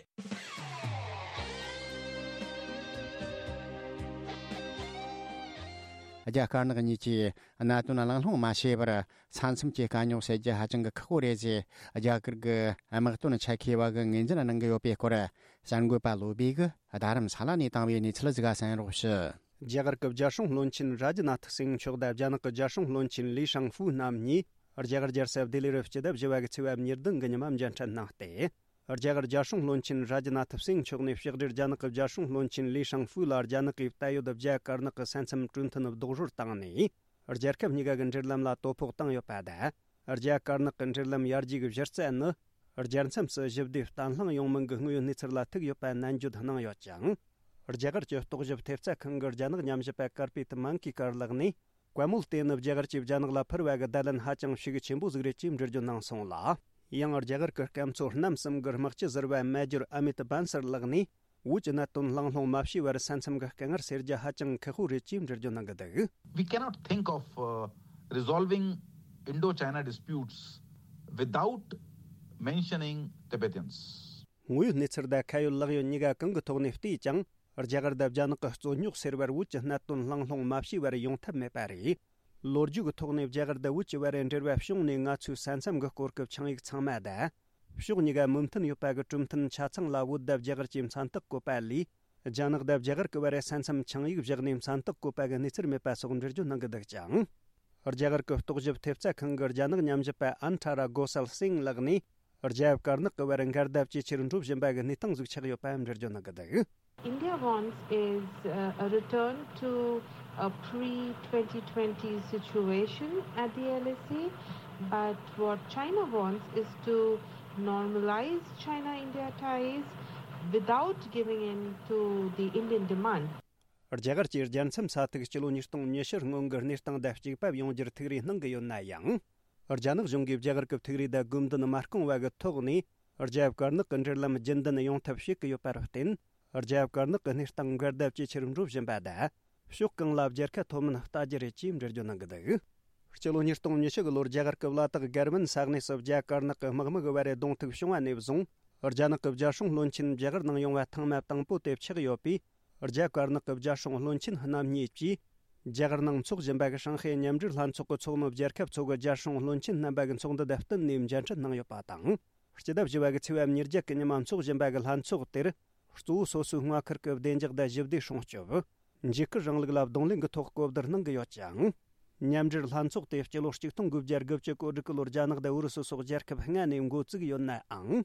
རྒྱ་དཀར་ནག་གཉིས་ཀྱིས་གནད་དོན་གླེང་སློང་མ་བྱས་པར་ས་མཚམས་ཀྱི་དཀའ་རྙོག་སེལ་རྒྱུ་ཧ་ཅང་གི་ཁག་པོ་རེད་ཅེས་རྒྱ་གར་གྱི་དམག་དོན་ཆེད་མཁས་པ་གིས་ངོས་འཛིན་གནང་གི་ཡོད་པའི་སྐོར་གསར་འགོད་པ་བློ་བྷེ་གིས་རྡ་རམ་ས་ལ་ནས་བཏང་བའི་གནས་ཚུལ་ཞིག་གསན་རོགས་ཞུ། རྒྱ་གར་གྱི་རྒྱལ་སྲུང་བློན་ཆེན་རཱ་ཇི་ནཱ་ཐི་སིང་མཆོག་དང་རྒྱ་ནག་གི་རྒྱལ་སྲུང་བློན་ཆེན་ལི་ཧྲང་ཧྥུའུ་རྣམ་གཉིས་རྒྱ་གར་རྒྱལ་ས་ལྡི་ལི་རུ་སྤྱི་ཟླ་བཞི་པ་གི་ཚེས་པ་ཉེར་བདུན་གི་ཉི་མ་མཇལ་འཕྲད་གནང་སྟེ། རྒྱ་གར་རྒྱལ་སྲུང་བློན་ཆེན་རཱ་ཇི་ནཱ་ཐི་སིང་མཆོག་ནས་ཕྱི་དྲིལ་རྒྱ་ནག་གི་རྒྱལ་སྲུང་བློན་ཆེན་ལི་ཧྲང་ཧྥུའུ་ལ་རྒྱ་ནག་གིས་ད་ཡོད་རྒྱ་དཀར་ནག་གི་ས་མཚམས་གྲོས་མཐུན་རྡོག་རོལ་བཏང་ནས། རྒྱལ་ཁབ་གཉིས་ཀ་གི་འབྲེལ་ལམ་ལ་དོ་ཕོག་བཏང་ཡོད་པ་དང་། རྒྱ་དཀར་ནག་གི་འབྲེལ་ལམ་ཡར་རྒྱས་ཀྱི་གཞི་རྩ་ནི། རྒྱལ་མཚམས་སུ་ཞི་བདེ་བརྟན་ལྷིང་ཡོང་མིན་གྱི་དངོས་ཡོད་གནས་ཚུལ་ལ་ཐུག་ཡོད་པ་ནན་བརྗོད་གནང་ཡོད་ཅིང་། རྒྱ་གར་གྱི་རྟོག་ཞིབ་ཐེབས་རྩ་ཁང་གི་རྒྱ་ནག་ཉམས་ཞིབ་པ་ཀར་པེ་ཏི་མན་ཀི་ཀར་ལགས་ནས། བཀའ་མོལ་དེ་ནི་རྒྱ་གར་གྱིས་རྒྱ་ནག་ལ་ཕུལ་བ་གི་བརྡ་ལན་ཧ་ཅང་ཤུགས་ཆེན་པོ་ཟིག་རེད་ཅེས་འགྲེལ་བརྗོད་གནང་སོང་ལ། ཡང་རྒྱ་གར་གྱི་སྐམ་མཚོ་གནམ་གསུམ་གྱི་དམག་སྤྱི་ཟུར་པ་མེ་ཇོར་ཨ་མི་ཏ་བན་སར་ལགས་ནས། བོད་ཀྱི་གནད་དོན་གླེང་སློང་མ་བྱས་པར་ས་མཚམས་ཀྱི་དཀའ་ངལ་སེལ་རྒྱུ་ཧ་ཅང་ཁག་པོ་རེད་ཅེས་འགྲེལ་བརྗོད་གནང་གི་འདུག We cannot think of uh, resolving Indo-China disputes without mentioning Tibetans. དངོས་ཡོད་གནས་ཚུལ་དང་ཁ་ཡོད་ལག་ཡོད་གཉིས་ཀ་གང་གི་ཐོག་ནས་བལྟས་ཀྱང་། རྒྱ་གར་དང་རྒྱ་ནག་གི་རྩོད་རྙོག་སེལ་བར་བོད་ཀྱི་གནད་དོན་གླེང་སློང་མ་བྱས་པར་ཡོང་ཐབས་མེད་པ་རེད། ལོ་རྒྱུས་ཀྱི་ཐོག་ནས་རྒྱ་གར་དང་བོད་ཀྱི་བར་འབྲེལ་བ་བྱུང་ནས་ང་ཚོའི་ས་མཚམས་ཀྱི་སྐོར་གྱི་ཆིངས་ཡིག་ཚང་མ་དང་། ཕྱོགས་གཉིས་ཀ་མོས་མཐུན་ཡོད་པ་གི་གྲོས་མཐུན་ཆ་ཚང་ལ་བོད་དང་རྒྱ་གར་གྱིས་མཚན་རྟགས་བཀོད་པ་ལས། རྒྱ་ནག་དང་རྒྱ་གར་གྱི་བར་ས་མཚམས་ཆིངས་ཡིག་བཞག་ནས་མཚན་རྟགས་བཀོད་པ་གི་གནས་ཚུལ་མེད་པ་སོགས་འགྲེལ་བརྗོད་གནང་གི་འདུག་ཅིང་། རྒྱ་གར་གྱི་རྟོག་ཞིབ་ཐེབས་རྩ་ཁང་གི་རྒྱ་ནག་ཉམས་ཞིབ་པ་ཨན་ཁྲ་ར་གོ་སལ་སིང་ལགས་ནས། རྒྱ་དཀར་ནག་གི་བར་འགལ་ཟླ་ཇེ་ཆེར་འགྲོ་བཞིན་པ་གི་གནས་སྟངས་ཟིག་ཆགས་ཡོད་པ་འགྲེལ་བརྗོད་གནང་གི་འདུག India wants is uh, a return to a pre twenty twenty situation at the L A C, but what China wants is to normalize China India ties without giving in to the Indian demand. རྒྱ་གར་གྱིས་རྒྱལ་མཚམས་ས་ཐིག་སྤྱི་ལོ་ཉིས་སྟོང་ཉི་ཤུ་སྔོན་གྱི་གནས་སྟངས་དང་གཅིག་པ་ཡོང་རྒྱུར་ཐུགས་རེ་གནང་གི་ཡོད་ན་ཡང་། རྒྱ་ནག་གཞུང་གིས་རྒྱ་གར་གྱི་ཐུགས་རེ་དང་དགོས་འདུན་མ་སྐོང་བ་གི་ཐོག་ནས། རྒྱ་དཀར་ནག་གི་འབྲེལ་ལམ་རྒྱུན་ལྡན་ཡོང་ཐབས་བྱེད་ཀྱི་ཡོད་པར་བརྟེན། རྒྱ་དཀར་ནག་གི་གནས་སྟངས་འགལ་ཟླ་ཇེ་ཆེར་འགྲོ་བཞིན་པ་དང་། ཕྱོགས་གང་ལ་རྒྱལ་ཁ་ཐོབ་མིན་ལྟ་རྒྱུ་རེད་ཅེས་འགྲེལ་བརྗོད་གནང་གི་འདུག་སྤྱི་ལོ་ཉིས་སྟོང་ཉི་ཤུ་གི་ལོར་རྒྱ་གར་གྱི་བླ་དྭགས་གར་མན་ས་གནས་སུ་རྒྱ་དཀར་ནག་གི་དམག་མི་གི་བར་རེ་གདོང་ཐུག་བྱུང་བ་ནས་བཟུང་། རྒྱ་ནག་གི་རྒྱལ་སྲུང་བློན་ཆེན་རྒྱ་གར་ནང་ཡོང་བ་ཐེངས་མ་དང་པོ་དེ་ཆགས་ཡོད་པས། རྒྱ་དཀར་ནག་གི་རྒྱལ་སྲུང་བློན་ཆེན་རྣམ་གཉིས་ཀྱིས། རྒྱ་གར་ནང་འཚོགས་བཞིན་པ་གི་ཧྲང་ཧའེ་མཉམ་འབྲེལ་ལྷན་ཚོགས་ཀྱི་ཚོགས་མི་རྒྱལ་ཁབ་ཚོ་གི་རྒྱལ་སྲུང་བློན་ཆེན་རྣམ་པ་གི་ཚོགས་འདུ་དང་བསྟུན་ནས་མཇལ་འཕྲད་གནང་ཡོད་པ་དང་། སྤྱི་ཟླ་བཞི་པ་གི་ཚེས་པ་ཉེར་བརྒྱད་ཀྱི་ཉི་མ་འཚོགས་བཞིན་པ་གི་ལྷན་ཚོགས་དེར། གཙོ་བོ་སོ་སོའི་མངའ་ཁུལ་གྱི་བདེ་འཇགས་དང་ཞི་བདེ་སྲུང་སྐྱོབ། འཇིགས་སྐུལ་རིང་ལུགས་ལ་གདོང་ལེན་གྱི་ཐོག་གོ་བསྡུར་གནང་གི་ཡོད་ཅིང་། མཉམ་འབྲེལ་ལྷན་ཚོགས་དེ་སྤྱི་ལོ་ཆིག་སྟོང་དགུ་བརྒྱ་དགུ་བཅུ་གོ་དྲུག་གི་ལོར་རྒྱ་ནག་དང་ཨུ་རུ་སུ་སོགས་རྒྱལ་ཁབ་ལྔ་ནས་འགོ་བཙུགས་ཡོད་ནའང་།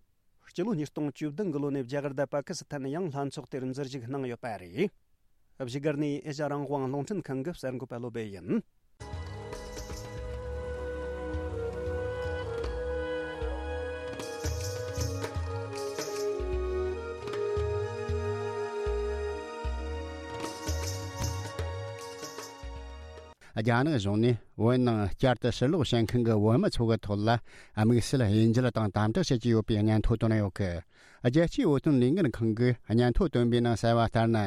སྤྱི་ལོ་ཉིས་སྟོང་བཅུ་བདུན་གི་ལོ་ནས་རྒྱ་གར་དང་པ་ཀི་སི་ཐན་ཡང་ལྷན་ཚོགས་དེར་འཛུལ་ཞུགས་གནང་ཡོད་པ་རེད། བཞུགས་སྒར་ནས་ཨེ་ཤ་ཡ་རང་དབང་རླུང་འཕྲིན་ཁང་གི་གསར་འགོད་པ་བློ་བྷེ་ཡིན། རྒྱ་ནག་གཞུང་ནས་བོད་ནང་བསྐྱར་དུ་ཕྱིར་ལོག་བྱེད་མཁན་གྱི་བོད་མི་ཚོ་གི་ཐོག་ལ་དམིགས་བསལ་དབྱེ་འབྱེད་དང་དམ་དྲག་བྱེད་ཀྱི་ཡོད་པའི་སྙན་ཐོ་བཏོན་ཡོད་གི། རྒྱལ་སྤྱིའི་བོད་དོན་ལས་འགུལ་ཁང་གིས་སྙན་ཐོ་བཏོན་པའི་ནང་གསལ་བ་ལྟར་ན།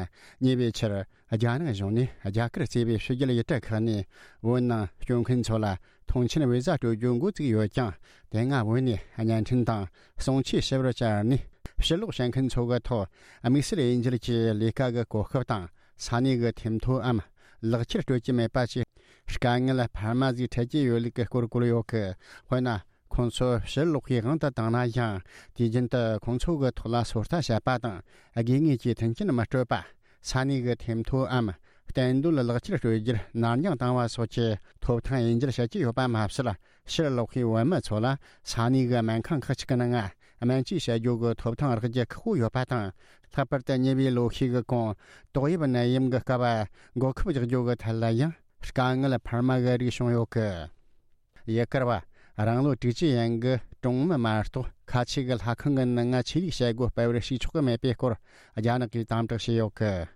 ཉེ་བའི་ཆར་རྒྱ་ནག་གཞུང་ནས་རྒྱ་གར་གཙོས་པའི་ཕྱི་རྒྱལ་ཡུལ་གྲུ་ཁག་ནས་བོད་ནང་སྐྱོད་མཁན་ཚོ་ལ་ཐོངས་མཆན་བི་ཟ་སྤྲོད་རྒྱུ་འགོ་བཙུགས་ཡོད་ཀྱང་། དེ་སྔ་བོད་ནས་བརྙན་འཕྲིན་དང་གསུང་ཆོས་ཞུ་བར་བཅར་ནས། ཕྱིར་ལོག་བྱེད་མཁན་ཚོ་གི་ཐོག་དམིགས་བསལ་དབྱེ་འབྱེད་ཀྱི་ལས་ཀ་གི་གོ་སྐབས་དང་། ས་གནས་ཀྱི་ཐེམ་ཐོའམ་ལག་ཁྱེར་སྤྲོད་ཀྱི་མེད་པ་བཅས་དཀའ་ངལ་འཕར་མ་ཟིག་འཕྲད་ཀྱི་ཡོད་ལུགས་ཀྱི་སྐོར་བཀོད་ཡོད་གི། དཔེར་ན། ཁོང་ཚོ་ཕྱིར་ལོག་གི་དབང་དུ་བཏང་ན་ཡང་། དུས་རྒྱུན་དུ་ཁོང་ཚོ་གི་ཐོག་ལ་སོ་ལྟ་བྱེད་པ་དང་། དགོས་ངེས་ཀྱི་མཐུན་རྐྱེན་མི་སྤྲོད་པ། ས་གནས་ཀྱི་ཐེམ་ཐོའམ་གཏན་སྡོད་ལག་ཁྱེར་སྤྲོད་རྒྱུར་ནར་འགྱངས་བཏང་བ་སོགས་ཀྱི་ཐོབ་ཐང་དབྱེ་འབྱེད་བྱེད་ཀྱི་ཡོད་པ་མ་ཟད། ཕྱིར་ལོག་པའི་བོད་མི་ཚོ་ལ་ས་གནས་ཀྱི་སྨན་ཁང་ཁག་ཅིག་གི་ནང་སྨན་བཅོས་བྱ་རྒྱུ་གི་ཐོབ་ཐང་རག་རྒྱུ་ཁག་པོ་ཡོད་པ་དང་། ལྷག་པར་དུ་ཉེ་བའི་ལོ་ཤས་ཀྱི་གོང་ཏོག་དབྱིབས་ནད་ཡམས་ཀྱི་སྐབས་འགོག་ཁབ་རྒྱག་རྒྱུ་གི་ཐད་ལ་ཡང་དཀའ་ངལ་འཕར་མ་གི་རིགས་བྱུང་ཡོད་གི། ཡུལ་གར་བ་རང་ལོ་དྲུག་ཅུ་ཡན་གྱི་གྲོང་མི་མ་གཏོགས་ཁ་ཆེ་གི་ལྷ་ཁང་གི་ནང་ང་ཆོས་ལུགས་བྱེད་སྒོ་སྤེལ་བར་ཞུགས་ཆོག་གི་མེད་པའི་སྐོར་རྒྱ་ནག་གིས་དམ་དྲག་བྱས་ཡོད་གི།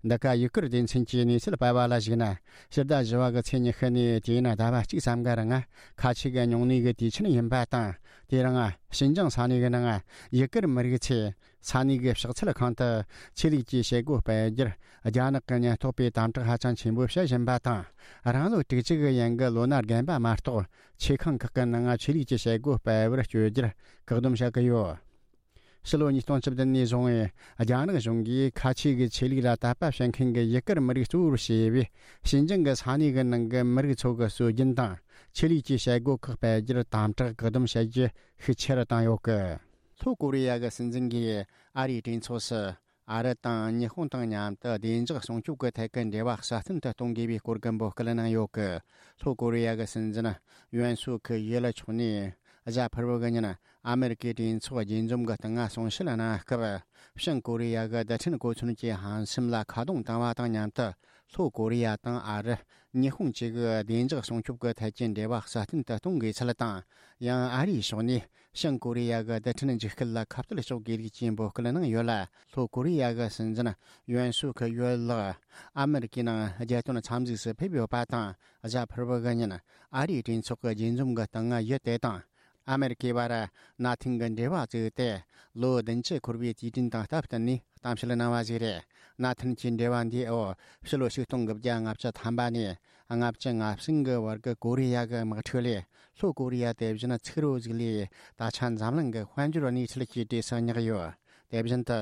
འདི་ག་ཡུ་གུར་སྡེ་ཚན་གྱི་གནས་ཚུལ་སྤེལ་བ་ལ་གཞིགས་ན། ཕྱི་ཟླ་བཞི་བ་གི་ཚེས་ཉི་ཤུ་ནས་དེ་ཡིན་ཟླ་བ་གཅིག་ཙམ་གི་རིང་ཁ་ཆེ་གི་ཉུང་གནས་གི་དུས་ཆེན་ཡིན་པ་དང་། དེ་རིང་ཞིན་ཅང་ས་གནས་གི་ནང་ཡུ་གུར་མི་རིགས་ཚོས་ས་གནས་གི་ཕྱག་འཚལ་ཁང་དུ་ཆོས་ལུགས་ཀྱི་བྱེད་སྒོ་སྤེལ་རྒྱུར་རྒྱ་ནག་གི་ཉེན་རྟོག་པས་དམ་དྲག་ཧ་ཅང་ཆེན་པོ་བྱེད་བཞིན་པ་དང་། རང་ལོ་དྲུག་ཅུ་གི་ཡན་གི་ལོ་ན་རྒན་པ་མ་གཏོགས། ཆོས་ཁང་ཁག་གི་ནང་ཆོས་ལུགས་ཀྱི་བྱེད་སྒོ་སྤེལ་བར་བསྐྱོད་རྒྱུར་བཀག་སྡོམ་བྱ་གི་ཡོད། ཕྱི་ལོ་ཉིས་སྟོང་བཅུ་བདུན་ནས་བཟུང་བའི་རྒྱ་ནག་གཞུང་གིས་ཁ་ཆེ་གི་ཆོས་ལུགས་ལ་དད་པ་བྱེད་མཁན་གྱི་ཡུ་གུར་མི་རིགས་གཙོ་བོར་བྱས་པའི་ཞིན་ཅང་གི་ས་གནས་ཀྱི་ནང་གི་མི་རིགས་ཚོ་གི་སྲོལ་རྒྱུན་དང་ཆོས་ལུགས་ཀྱི་བྱེད་སྒོ་ཁག་སྤེལ་རྒྱུར་དམ་དྲག་བཀག་སྡོམ་བྱེད་རྒྱུ་ཤུགས་ཆེ་རུ་བཏང་ཡོད་གི། ལྷོ་ཀོ་རི་ཡ་གི་སྲིད་འཛིན་གྱིས་ཨ་རིའི་གྲོས་ཚོགས་སུ། ཨ་རི་དང་ཉི་ཧོང་དང་མཉམ་དུ་བདེ་འཇགས་སྲུང་སྐྱོབ་ཀྱི་ཐད་ཀྱི་འབྲེལ་བ་སྲ་བརྟན་དུ་གཏོང་དགོས་པའི་སྐོར་གྱི་འབོད་སྐུལ་གནང་ཡོད་ཀི། ལྷོ་ཀོ་རི་ཡ་གི་སྲིད་འཛིན་ཡོན་སུག་ཡོལ་མཆོག་ནས་གཟའ་ཕུར་བུ་གི་ཉིན་ཨ་མེ་རི་ཀའི་གྲོས་ཚོགས་རྒྱས་འཛོམས་ཀྱི་སྟེང་གསུང་བཤད་གནང་སྐབས། བྱང་ཀོ་རི་ཡ་གི་རྡུལ་ཕྲན་གོ་མཚོན་གྱི་ཧམ་སེམས་ལ་ཁ་རྡུང་བཏང་བ་དང་མཉམ་དུ། ལྷོ་ཀོ་རི་ཡ་དང་ཨ་རི། ཉི་ཧོང་བཅས་ཀྱི་བདེ་འཇགས་སྲུང་སྐྱོབ་ཀྱི་ཐད་ཀྱི་འབྲེལ་བ་སྲ་བརྟན་དུ་གཏོང་དགོས་ཚུལ་དང་། ཡང་ཨ་རིའི་ཕྱོགས་ནས་བྱང་ཀོ་རི་ཡ་གི་རྡུལ་ཕྲན་འཇིགས་སྐུལ་ལ་ཁ་གཏད་གཅོག་དགོས་ལུགས་ཀྱི་འབོད་སྐུལ་གནང་ཡོད་ལ། ལྷོ་ཀོ་རི་ཡ་གི་སྲིད་འཛིན་ཡོན་སུག་ཡོལ་ལགས་ཨ་མེ་རི་ཀའི་ནང་རྒྱལ་དོན་འཚམས་གཟིགས་སུ་ཕེབས་ཡོད་པ་དང་། གཟའ་ཕུར་བུ་གི་ཉིན་ཨ་རིའི་གྲོས་ཚོགས་ཀྱི་རྒྱས་འཛོམས་ཀྱི་སྟེང་ཡུལ་དེ་དང་ཨ་མེ་རི་ཀའི་བར་གནའ་དེང་གི་འབྲེལ་བ་བཙུགས་ཏེ། ལོ་བདུན་ཅུ་འཁོར་བའི་དུས་དྲན་དང་སྟབས་བསྟུན་ནས་གཏམ་བཤད་གནང་བ་ཞིག་རེད། གནའ་དེང་གི་འབྲེལ་བ་འདིའི་འོག་ཕྱི་ལོ་ཆིག་སྟོང་དགུ་བརྒྱ་ལྔ་བཅུ་ཐམ་པ་ནས་ལྔ་བཅུ་ང་གསུམ་གི་བར་གྱི་ཀོ་རི་ཡ་གི་དམག་འཁྲུག་ལས། ལྷོ་ཀོ་རི་ཡ་དེ་བཞིན་ཚུགས་རོ་ཟིག་ལས་ད་ཆ་འཛམ་གླིང་གི་དཔལ་འབྱོར་གནས་ཚུལ་གྱི་གྲས་སུ་བསྙེགས་ཡོད། དེ་བཞིན་དུ།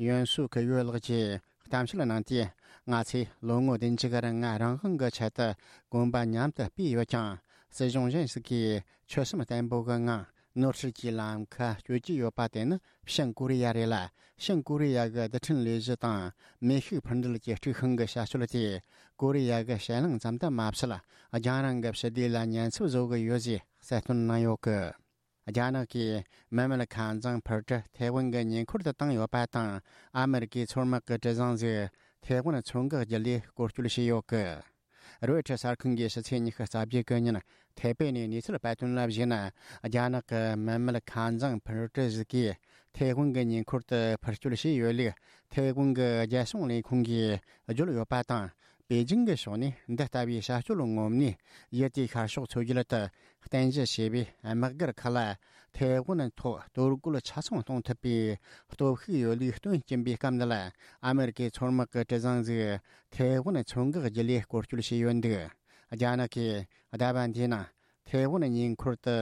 ཡོན་སུ་ཁི་ཡོད་ལགས་ཀྱིས་གཏམ་བཤད་གནང་སྟེ། ང་ཚོས་ལོ་ངོ་བདུན་ཅུ་གི་རིང་རང་དབང་གི་ཆེད་དུ་གོམ་པ་མཉམ་དུ་སྤོས་ཡོད་ཀྱང་། སྲིད་གཞུང་གཞན་ཞིག་གིས་ཆོད་སེམས་བརྟན་པོ་གི་ངང་ནོར་སྲིད་ཀྱི་ལམ་ཁ་གཅོད་ཀྱི་ཡོད་པ་དེ་ནི་བྱང་ཀོ་རི་ཡ་རེད་ལ། བྱང་ཀོ་རི་ཡ་གི་རྡུལ་ཕྲན་ལས་གཞི་དང་མེ་ཤུགས་འཕུར་འགྲུལ་གྱི་དཀྲུག་ཤིང་གི་བྱ་སྤྱོད་དེས་ཀོ་རི་ཡ་གི་ཕྱེད་གླིང་ཙམ་དུ་མ་ཟད། རྒྱང་རིང་གི་ཕྱི་སྡེ་ལ་ཉེན་ཚབས་བཟོ་གི་ཡོད་ཅེས་གསལ་སྟོན་གནང་ཡོད་གི། རྒྱ་ནག་གིས་མི་མེད་ཁ་འཛིང་འཕུར་གྲུ་ཐའེ་ཝན་གྱི་ཉེ་འཁོར་དུ་བཏང་ཡོད་པ་དང་། ཨ་མེ་རི་ཀའི་མཚོ་དམག་གི་གྲུ་གཟིངས་ཟིག་ཐའེ་ཝན་མཚོ་འགག་བརྒྱུད་ལས་སྐོར་སྐྱོད་བྱས་ཡོད་གི། རོའི་ཊར་གསར་ཁང་གིས་ཕྱི་ཚེས་ཉི་ཤུ་རྩ་བརྒྱད་གི་ཉིན་ཐའེ་པེ་ནས་གནས་ཚུལ་སྤེལ་དོན་ལ་གཞིགས་ན། རྒྱ་ནག་གི་མི་མེད་ཁ་འཛིང་འཕུར་གྲུ་ཟིག་གིས་ཐའེ་ཝན་གྱི་ཉེ་འཁོར་དུ་འཕུར་སྐྱོད་བྱས་ཡོད་ལུགས་ཐའེ་ཝན་གྱི་རྒྱལ་སྲུང་ལས་ཁུངས་ཀྱིས་བརྗོད་ཡོད་པ་དང་། པེ་ཅིང་གི་ཕྱོགས་ནས་འདི་ལྟ་བུའི་བྱ་སྤྱོད་ངོམ་ནས་ཡུལ་དེའི་ཤར་ཕྱོགས་མཚོ་རྒྱུད་དུ་རྟེན་གཞི་བྱས་པའི་དམག་སྒར་ཁག་ལ་ཐའེ་ཝན་ཐོག་གཏོར་རྒོལ་ཆ་ཚང་གཏོང་ཐུབ་པའི་སྟོབས་ཤུགས་ཡོད་ལུགས་སྟོན་གྱིན་པའི་སྐབས་འདི་ལ། ཨ་མེ་རི་ཀའི་མཚོ་དམག་གི་གྲུ་གཟིངས་ཟིག་ཐའེ་ཝན་མཚོ་འགག་བརྒྱུད་ལས་སྐོར་སྐྱོད་བྱས་ཡོད་འདུག། རྒྱ་ནག་གིས་ཟླ་བ་འདིའི་ནང་ཐའེ་ཝན་ཉེ་འཁོར་དུ་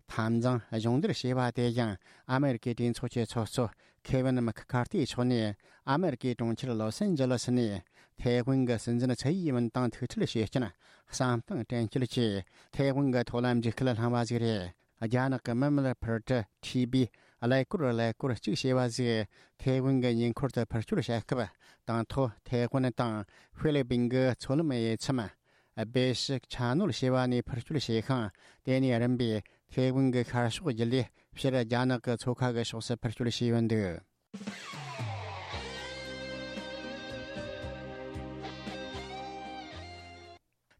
འཐབ་འཛིང་སྦྱོང་བརྡར་བྱས་པ་དེ་ཡང་ཨ་མེ་རི་ཀའི་གྲོས་ཚོགས་ཀྱི་ཚོགས་གཙོ་ཁེ་ཝིན་མེག་ཁར་ཐིའི་ཕྱོགས་ནས་ཨ་མེ་རི་ཀའི་གྲོང་ཁྱེར་ལོ་སན་ཇི་ལི་སི་ནས་ཐའེ་ཝན་གྱི་སྲིད་འཛིན་ཚའེ་ཡིན་ཝུན་དང་ཐུག་འཕྲད་བྱེད་རྐྱེན་བསམ་སྟངས་དྲན་སྐུལ་གྱིས་ཐའེ་ཝན་གྱི་ཐོག་ལ་འཇིགས་སྐུལ་བསླངས་པ་ཞིག་རེད། རྒྱ་ནག་གི་མི་མེད་འཕུར་གྲུ་ཐི་བི་ཀླད་ཀོར་ཀླད་ཀོར་གཅིག་ཞེས་པ་ཞིག་ཐའེ་ཝན་གྱི་ཉེ་འཁོར་དུ་འཕུར་སྐྱོད་བྱ་སྐབས། དང་ཐོག་ཐའེ་ཝན་དང་ཧྥི་ལི་པིན་གྱི་མཚོ་ལམ་དབྱེ་མཚམས་སྦེ་ཤི་ཆ་ནོར་ཞེས་པ་ནས་འཕུར་སྐྱོད་བྱས་ཤིང་། དེ་ནས་རིམ་པས་ཐའེ་ཝན་གྱི་ཤར་ཕྱོགས་བརྒྱུད་ལས་ཕྱིར་རྒྱ་ནག་གི་མཚོ་ཁ་གི་ཕྱོགས་སུ་འཕུར་སྐྱོད་བྱས་ཡོད་འདུག།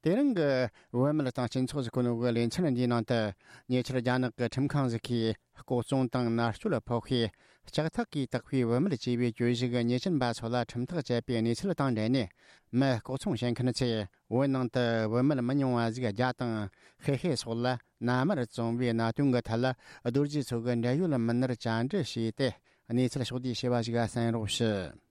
དེ་རིང་གི་བུད་མེད་དང་སྤྱི་ཚོགས་ཀྱི་གོ་གནས་ཀྱི་ལེ་ཚན་འདིའི་ནང་དུ། ཉེ་ཆར་རྒྱ་ནག་གི་ཁྲིམས་ཁང་ཞིག་གིས་ལྐོག་བཙོང་དང་མནར་གཅོད་ཕོག་ཤས། ལྕགས་ཐག་གིས་བཏགས་པའི་བུད་མེད་ཅེས་པའི་གྱོད་གཞི་གི་ཉེས་ཅན་པ་ཚོ་ལ་ཁྲིམས་ཐག་བཅད་པའི་གནས་ཚུལ་དང་འབྲེལ་ནས། མི་ལྐོག་ཚོང་བྱེད་མཁན་ཚོས་བོད་ནང་དུ་བུད་མེད་མི་ཉུང་བ་ཞིག་རྒྱ་དང་ཧེ་ཧེ་སོགས་ལ་མནའ་མར་བཙོང་བའི་གནད་དོན་གྱི་ཐད་ལ། རྡོ་རྗེ་མཚོ་གི་འབྲེལ་ཡོད་མི་སྣར་བཅར་འདྲི་བྱས་ཏེ། གནས་ཚུལ་ཕྱོགས་བསྡུས་བྱས་པ་ཞིག་གསན་རོགས་ཞུ།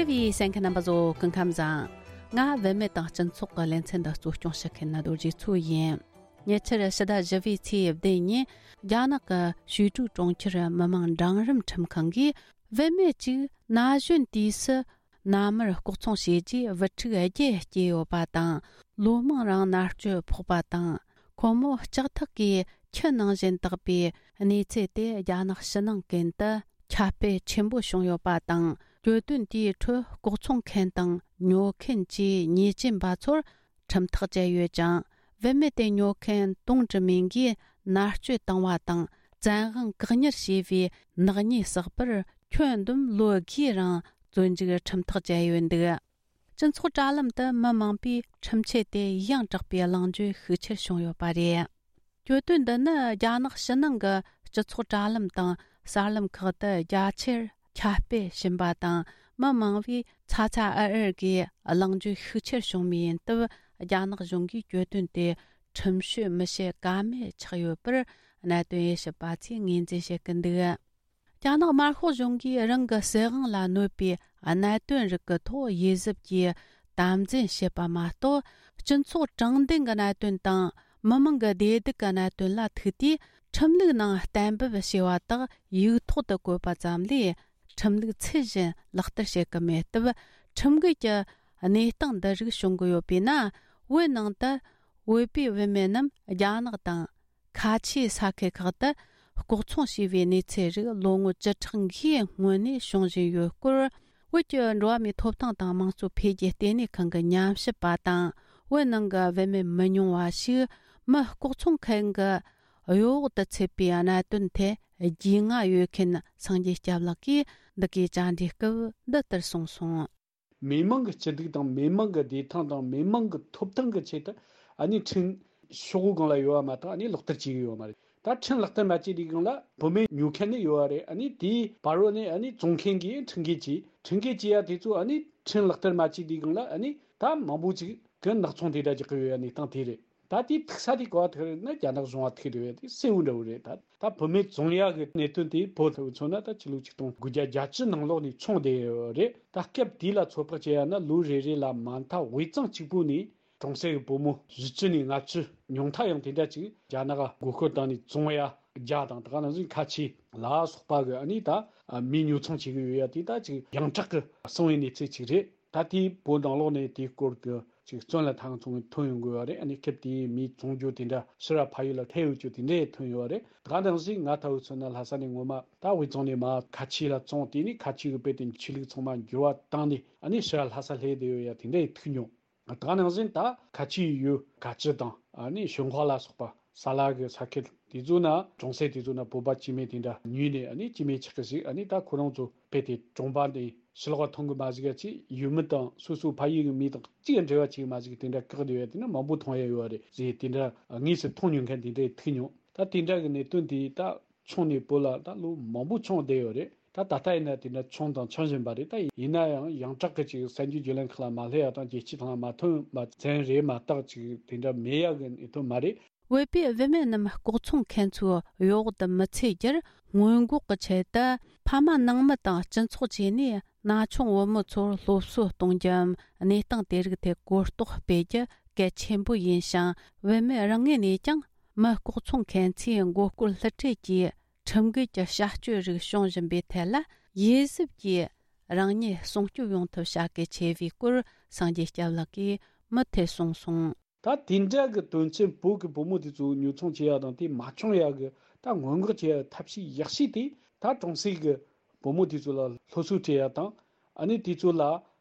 བརྩེ་བའི་གསན་མཁན་རྣམ་པ་ཚོ་སྐུ་ཁམས་བཟང་། ང་བུད་མེད་དང་སྤྱི་ཚོགས་ཀྱི་ལེ་ཚན་འདི་གཙོ་སྐྱོང་བྱེད་མཁན་ནི་རྡོ་རྗེ་མཚོ་ཡིན། ཉེ་ཆར་ཕྱི་ཟླ་བཞི་པའི་ཚེས་བདུན་ཉིན། རྒྱ་ནག་གི་ཞུས་ཀྲུའུ་གྲོང་ཁྱེར་མི་དམངས་འབྲིང་རིམ་ཁྲིམས་ཁང་གིས། བུད་མེད་ཅིག་ན་གཞོན་དུས་སུ། མནའ་མར་ལྐོག་ཚོང་བྱས་རྗེས་བུ་ཕྲུག་བརྒྱད་སྐྱེས་ཡོད་པ་དང་། ལོ་མང་རིང་མནར་གཅོད་ཕོག་པ་དང་། ཁོ་མོ་ལྕགས་ཐག་གིས་ཁྱི་ནང་བཞིན་བཏགས་པའི་གནས་ཚུལ་དེ་རྒྱ་ནག་ཕྱི་ནང་ཀུན་ཏུ་ཁྱབ་སྤེལ་ཆེན་པོ་བྱུང་ཡོད་པ་དང་། གྱོད་དོན་དེའི་ཁྲོད་ལྐོག་ཚོང་མཁན་དང་ཉོ་མཁན་བཅས་ཉེས་ཅན་པ་ཚོར་ཁྲིམས་ཐག་བཅད་ཡོད་ཀྱང་། བུད་མེད་དེ་ཉོ་མཁན་ཏུང་ཀྲི་མིང་གིས་མནར་གཅོད་བཏང་བ་དང་། བཙན་དབང་བཀག་ཉར་བྱས་པའི་ནག་ཉེས་བསགས་པར། ཁྱོན་བསྡོམས་ལོ་བརྒྱའི་རིང་བཙོན་འཇུག་ཁྲིམས་ཐག་བཅད་ཡོད་འདུག། སྤྱི་ཚོགས་དྲ་ལམ་དུ་མི་མང་པོས་ཁྲིམས་ཆད་དེ་ཡང་དྲག་པའི་གླེང་བརྗོད་ཤུགས་ཆེར་བྱུང་ཡོད་པ་རེད། གྱོད་དོན་འདི་ནི་རྒྱ་ནག་ཕྱི་ནང་གི་ སྤྱི་ཚོགས་དྲ་ལམ་དང་གསར་ལམ་ཁག་ཏུ་རྒྱ་ཆེར་ཁྱབ་སྤེལ་ཕྱིན་པ་དང་། མི་མང་བས་ཚ་ཚ་འུར་འུར་གྱིས་གླེང་བརྗོད་ཤུགས་ཆེར་བྱུང་བའི་ཡིན་སྟབས། རྒྱ་ནག་གཞུང་གིས་གྱོད་དོན་དེ་ཁྲིམས་གཅོད་མི་བྱེད་ཀ་མེད་ཆགས་ཡོད་པར། གནད་དོན་དབྱེ་ཞིབ་པ་ཚོས་ངོས་འཛིན་བྱེད་ཀྱི་འདུག་རྒྱ་ནག་དམར་ཤོག་གཞུང་གིས་རང་གི་སྲིད་དབང་ལ་གནོད་པའི་གནད་དོན་རིགས་ཀྱི་ཐོག་དབྱེ་གཟབ་ཀྱིས་དམ་འཛིན་བྱེད་པ་མ་གཏོགས། སྤྱི་ཚོགས་དྲང་བདེན་གྱི་གནད་དོན་དང་། མི་མང་གི་བདེ་སྡུག་གི་གནད་དོན་ལ་ཐུག་དུས། ཁྲིམས་ལུགས་ནང་གཏན་འབེབས་བྱས་པ་དག་ཡིག་ཐོག་ཏུ་བཀོད་པ་ཙམ་ལས། ཁྲིམས་ལུགས་ཚུལ་བཞིན་ལག་བསྟར་བྱེད་ཀྱི་མེད་སྟབས། ཁྲིམས་འགལ་གྱི་གནས་སྟངས་འདི་རིགས་བྱུང་གི་ཡོད་པས་ན། བོད་ནང་དུ་བོད་པའི་བུད་མེད་རྣམས་རྒྱ་ནག་དང་། ཁ་ཆེའི་ས་ཁུལ་ཁག་ཏུ་ལྐོག་ཚོང་བྱས་པའི་གནས་ཚུལ་རིགས་ལོ་ངོ་བཅུ་ཕྲག་འགའི་སྔོན་ནས་བྱུང་བཞིན་ཡོད་སྐོར། བོད་ཀྱི་འགྲོ་བ་མིའི་ཐོབ་ཐང་དང་དམངས་གཙོ་འཕེལ་རྒྱས་ལྟེ་གནས་ཁང་གི་ཉམས་ཞིབ་པ་དང་། བོད་ནང་གི་བུད་མེད་མི་ཉུང་བ་ཞིག་མི་ལྐོག་ཚོང་མཁན་གྱི་གཡོ་འོག་ཏུ་ཚུད་པའི་གནད་དོན་ཐད་རྒྱུས་མངའ་ཡོད་མཁན་སངས་རྒྱས་སྐྱབས་ལགས་ཀྱིས་འདི་གའི་བཅར་འདྲིའི་སྐབས་འདི་ལྟར་གསུངས་སོང་། མི་མང་གི་སྐྱིད་སྡུག་དང་། མི་མང་གི་བདེ་ཐང་དང་། མི་མང་གི་ཐོབ་ཐང་གི་ཆེད་དུ། ཨ་ནི་ཁྲིམས་ཤོག་བུ་སྒང་ལ་ཡོད་པ་མ་གཏོགས། ཨ་ནི་ལག་བསྟར་བྱེད་ཀྱི་ཡོད་པ་མ་རེད། ད་ཁྲིམས་ལག་བསྟར་མ་བྱས་དུས་སྒང་ལ་བུད་མེད་ཉོ་མཁན་ནི་ཡོད་པ་རེད། ཨ་ནི་དེའི་བར་རོ་ནས་ཨ་ནི་བཙོང་མཁན་གྱིས་ཁྲིམས་འགལ་བྱས། ཁྲིམས་འགལ་བྱས་ཡ་དེ་ཚོ་ཨ་ནི་ཁྲིམས་ལག་བསྟར་མ་བྱས་དུས་སྒང་ལ། ཨ་ནི་ད་མང་པོ་ཅིག་གི་ནག་ཚོང་དེ་འདྲ་རྒྱག་གི་ཡོད་ཡ་གནས་སྟངས་དེ་རེད། ད་དེའི་ཐུག་ས་དེ་ག་པར་ཐུག་རེད་ན། རྒྱ་ནག་གཞུང་ལ་ཐུག་འདུག་པས། དེ་གསལ་བོ་འདྲ་བོ་རེད། ད་ད་བུད་མེད་བཙོང་ཡག་གི་གནད་དོན་དེ་བོད་ལ་མཚོན་ན། ད་ཕྱི་ལོ་ཆིག་སྟོང་དགུ་བརྒྱ་བརྒྱད་ཅུ་ནང་ལོགས་ནས་བྱུང་བསྡད་ཡོད་རེད། ད་སྐབས་དེ་ལ་ཚོད་དཔག་བྱས་ཡ་ན། ལོ་རེ་རེ་ལ་མ་མཐའ་དབུས་གཙང་གཅིག་པུ་ནས་གྲོང་གསེབ་ཀྱི་བུ་མོ་བཞི་བཅུ་ནས་ལྔ་བཅུ། ཉུང་མཐའ་ཡང་དེ་འདྲ་ཅིག་རྒྱ་ནག་ག་མགོ་སྐོར་བཏང་ནས་བཙོང་ཡ་བརྒྱ་དང་། ད་ག་ནང་བཞིན་ཁ་ཆེ་ལ་སོགས་པ་གི་ཨ་ནི་ད་མི་ཉོ་ཚོང་བྱེད་ཀྱི་ཡོད་ཡ་དེ་ད་ཅིག་ཡོངས་གྲགས་ཀྱི་གསང་བའི་གནས་ཚུལ་ཅིག་རེད། ད་ལྟའི་བོད་ནང་ལོགས་ནས་དེའི་སྐོར་གྱི་ཅིག་བཙོན་ལ་ཐང་ཚོང་ཐོན་ཡོང་དགོས་པ་རེད། ཨ་ནི་སྐབས་དེའི་མིའི་བཙོང་རྒྱུ་དེ་འདྲ་ཕྱིར་ར་ཕ་ཡུལ་ལ་ཐལ་ཡོད་རྒྱུ་དེ་འདྲས་ཐོན་ཡོད་པ་རེད། ད་ག་ནང་བཞིན་ང་ལྟ་བུ་མཚོན་ན་ལྷ་ས་ནས་ངོ་མ་ད་དབུས་གཙང་ནས་མར་ཁ་ཆེ་ལ་བཙོང་། དེ་ནས་ཁ་ཆེ་གི་དཔེ་དེ་ཆོས་ལུགས་ཚང་མ་འགྱུར་བ་བཏང་ནས། ཨ་ནི་ཕྱིར་ར་ལྷ་ས་སླེབས་བསྡད་ཡོད་ཡ་དེ་འདྲས་ཐུག་མྱོང་། ད་ག་ནང་བཞིན་ད་ཁ་ཆེའི་ཡུལ་ག་ཅི་དང་། ཨ་ནི་ཞོན་ཁོག་ལ་སོགས་པ། ས་ལ་གི་ས་ཁུལ་དེ་ཚོ་ན། གྲོང་གསེབ་དེ་ཚོ་ན་བོད་པ་སྐྱེ་དམན་དེ་འདྲ་ཉུལ་ནས། ཨ་ནི་སྐྱེ་དམན་ཆགས་ཀྱི་ཞིག་ཨ་ནི་ད་ཁོ་རང་ཚོ་དཔེ་དེ་གྲོང་པ་འདི་ཕྱི་ལོགས་མཐོང་གི་མ་ཞིག་ཅིག་ཡུལ་མི་དང་སོ་སོའི་ཕ་ཡུལ་གྱི་མི་དང་ཅིག་འབྲེལ་བ་བྱེད་ཀྱི་མ་ཞིག་དེ་འདྲ་བཀག་བསྡད་ཡོད་དེ་ནི་མང་པོ་མཐོང་ཡ་ཡོད་རེད་ཟེར། དེ་འདྲ་དངོས་སུ་མཐོང་མྱོང་མཁན་དེ་འདྲ་ཐུག་མྱོང་། ད་དེ་འདྲ་གི་གནད་དོན་དེ་ད་བྱུང་ནས་བོད་ལ་ད་ལོ་མང་པོ་བྱུང་བསྡད་ཡོད་རེད། ད་ད་ལྟ་ཡིན་ན་དེ་འདྲ་བྱུང་དང་འཆང་བཞིན་པ་རེད། ད་ཡིན་ན་ཡང་ཡོངས་གྲགས་ཀྱི་ཅིག་གསར་འགྱུར་བརྒྱུད་ལམ་ཁག་ལ་མ་སླེབས་ཡ་དང་། རྒྱལ་སྤྱིའི་ཐོག་ལ་མ་ཐོན་པ་ཙམ་རེད་མ་གཏོགས། ཅིག་དེ་འདྲ་མེད་ཡ་གི་གནད་དོན་མ་རེད། བོད་པའི་བུད་མེད་རྣམས་ལྐོག་ཚོང་མཁན་ཚོའི་གཡོ་འོག་ཏུ་མི་ཚུད་རྒྱུར་སྔོན་འགོག་གི་ཆེད་དུ། ཕ་མ་ནང་མི་དང་སྤྱི་ཚོགས་བཅས་ནས་ན་ཆུང་བུ་མོ་ཚོར་སློབ་གསོ་གཏོང་རྒྱུའམ། གནས་སྟངས་དེ་རིགས་ཐད་གོ་རྟོགས་སྤེལ་རྒྱུ་གལ་ཆེན་པོ་ཡིན་ཞིང་། བུད་མེད་རང་ངོས་ནས་ཀྱང་མི་ལྐོག་ཚོང་མཁན་ཚོའི་མགོ་སྐོར་བསླུ་བྲིད་ཀྱི་ཁྲིམས་འགལ་གྱི་བྱ་སྤྱོད་རིགས་བྱུང་བཞིན་པའི་ཐད་ལ། དབྱེ་གཟབ་ཀྱིས་རང་ཉིད་སྲུང་སྐྱོབ་ཡོང་ཐབས་བྱ་གལ་ཆེ་བའི་སྐོར་སངས་རྒྱས་སྐྱབས་ལགས་ཀྱིས་མུ་མཐུད་གསུངས་སོང་། ད་དེ་འདྲ་གི་དོན་ཆེན་བོད་ཀྱི་བུ་མོ་དེ་ཚོ་ཉོ་ཚོང་བྱེད་ཡ་དང་། དེ་མ་བྱུང་ཡ་གི་ད་སྔོན་འགོག་བྱེད་ཡ་ཐབས་ཤེས་ཡག་ཤོས་དེ། ད་གྲོང་གསེབ་ཀྱི་བུ་མོ་དེ་ཚོ་ལ་སློབ་གསོ་སྤྲད་ཡ་དང་། ཨ་ནི་དེ་ཚོ་ལ་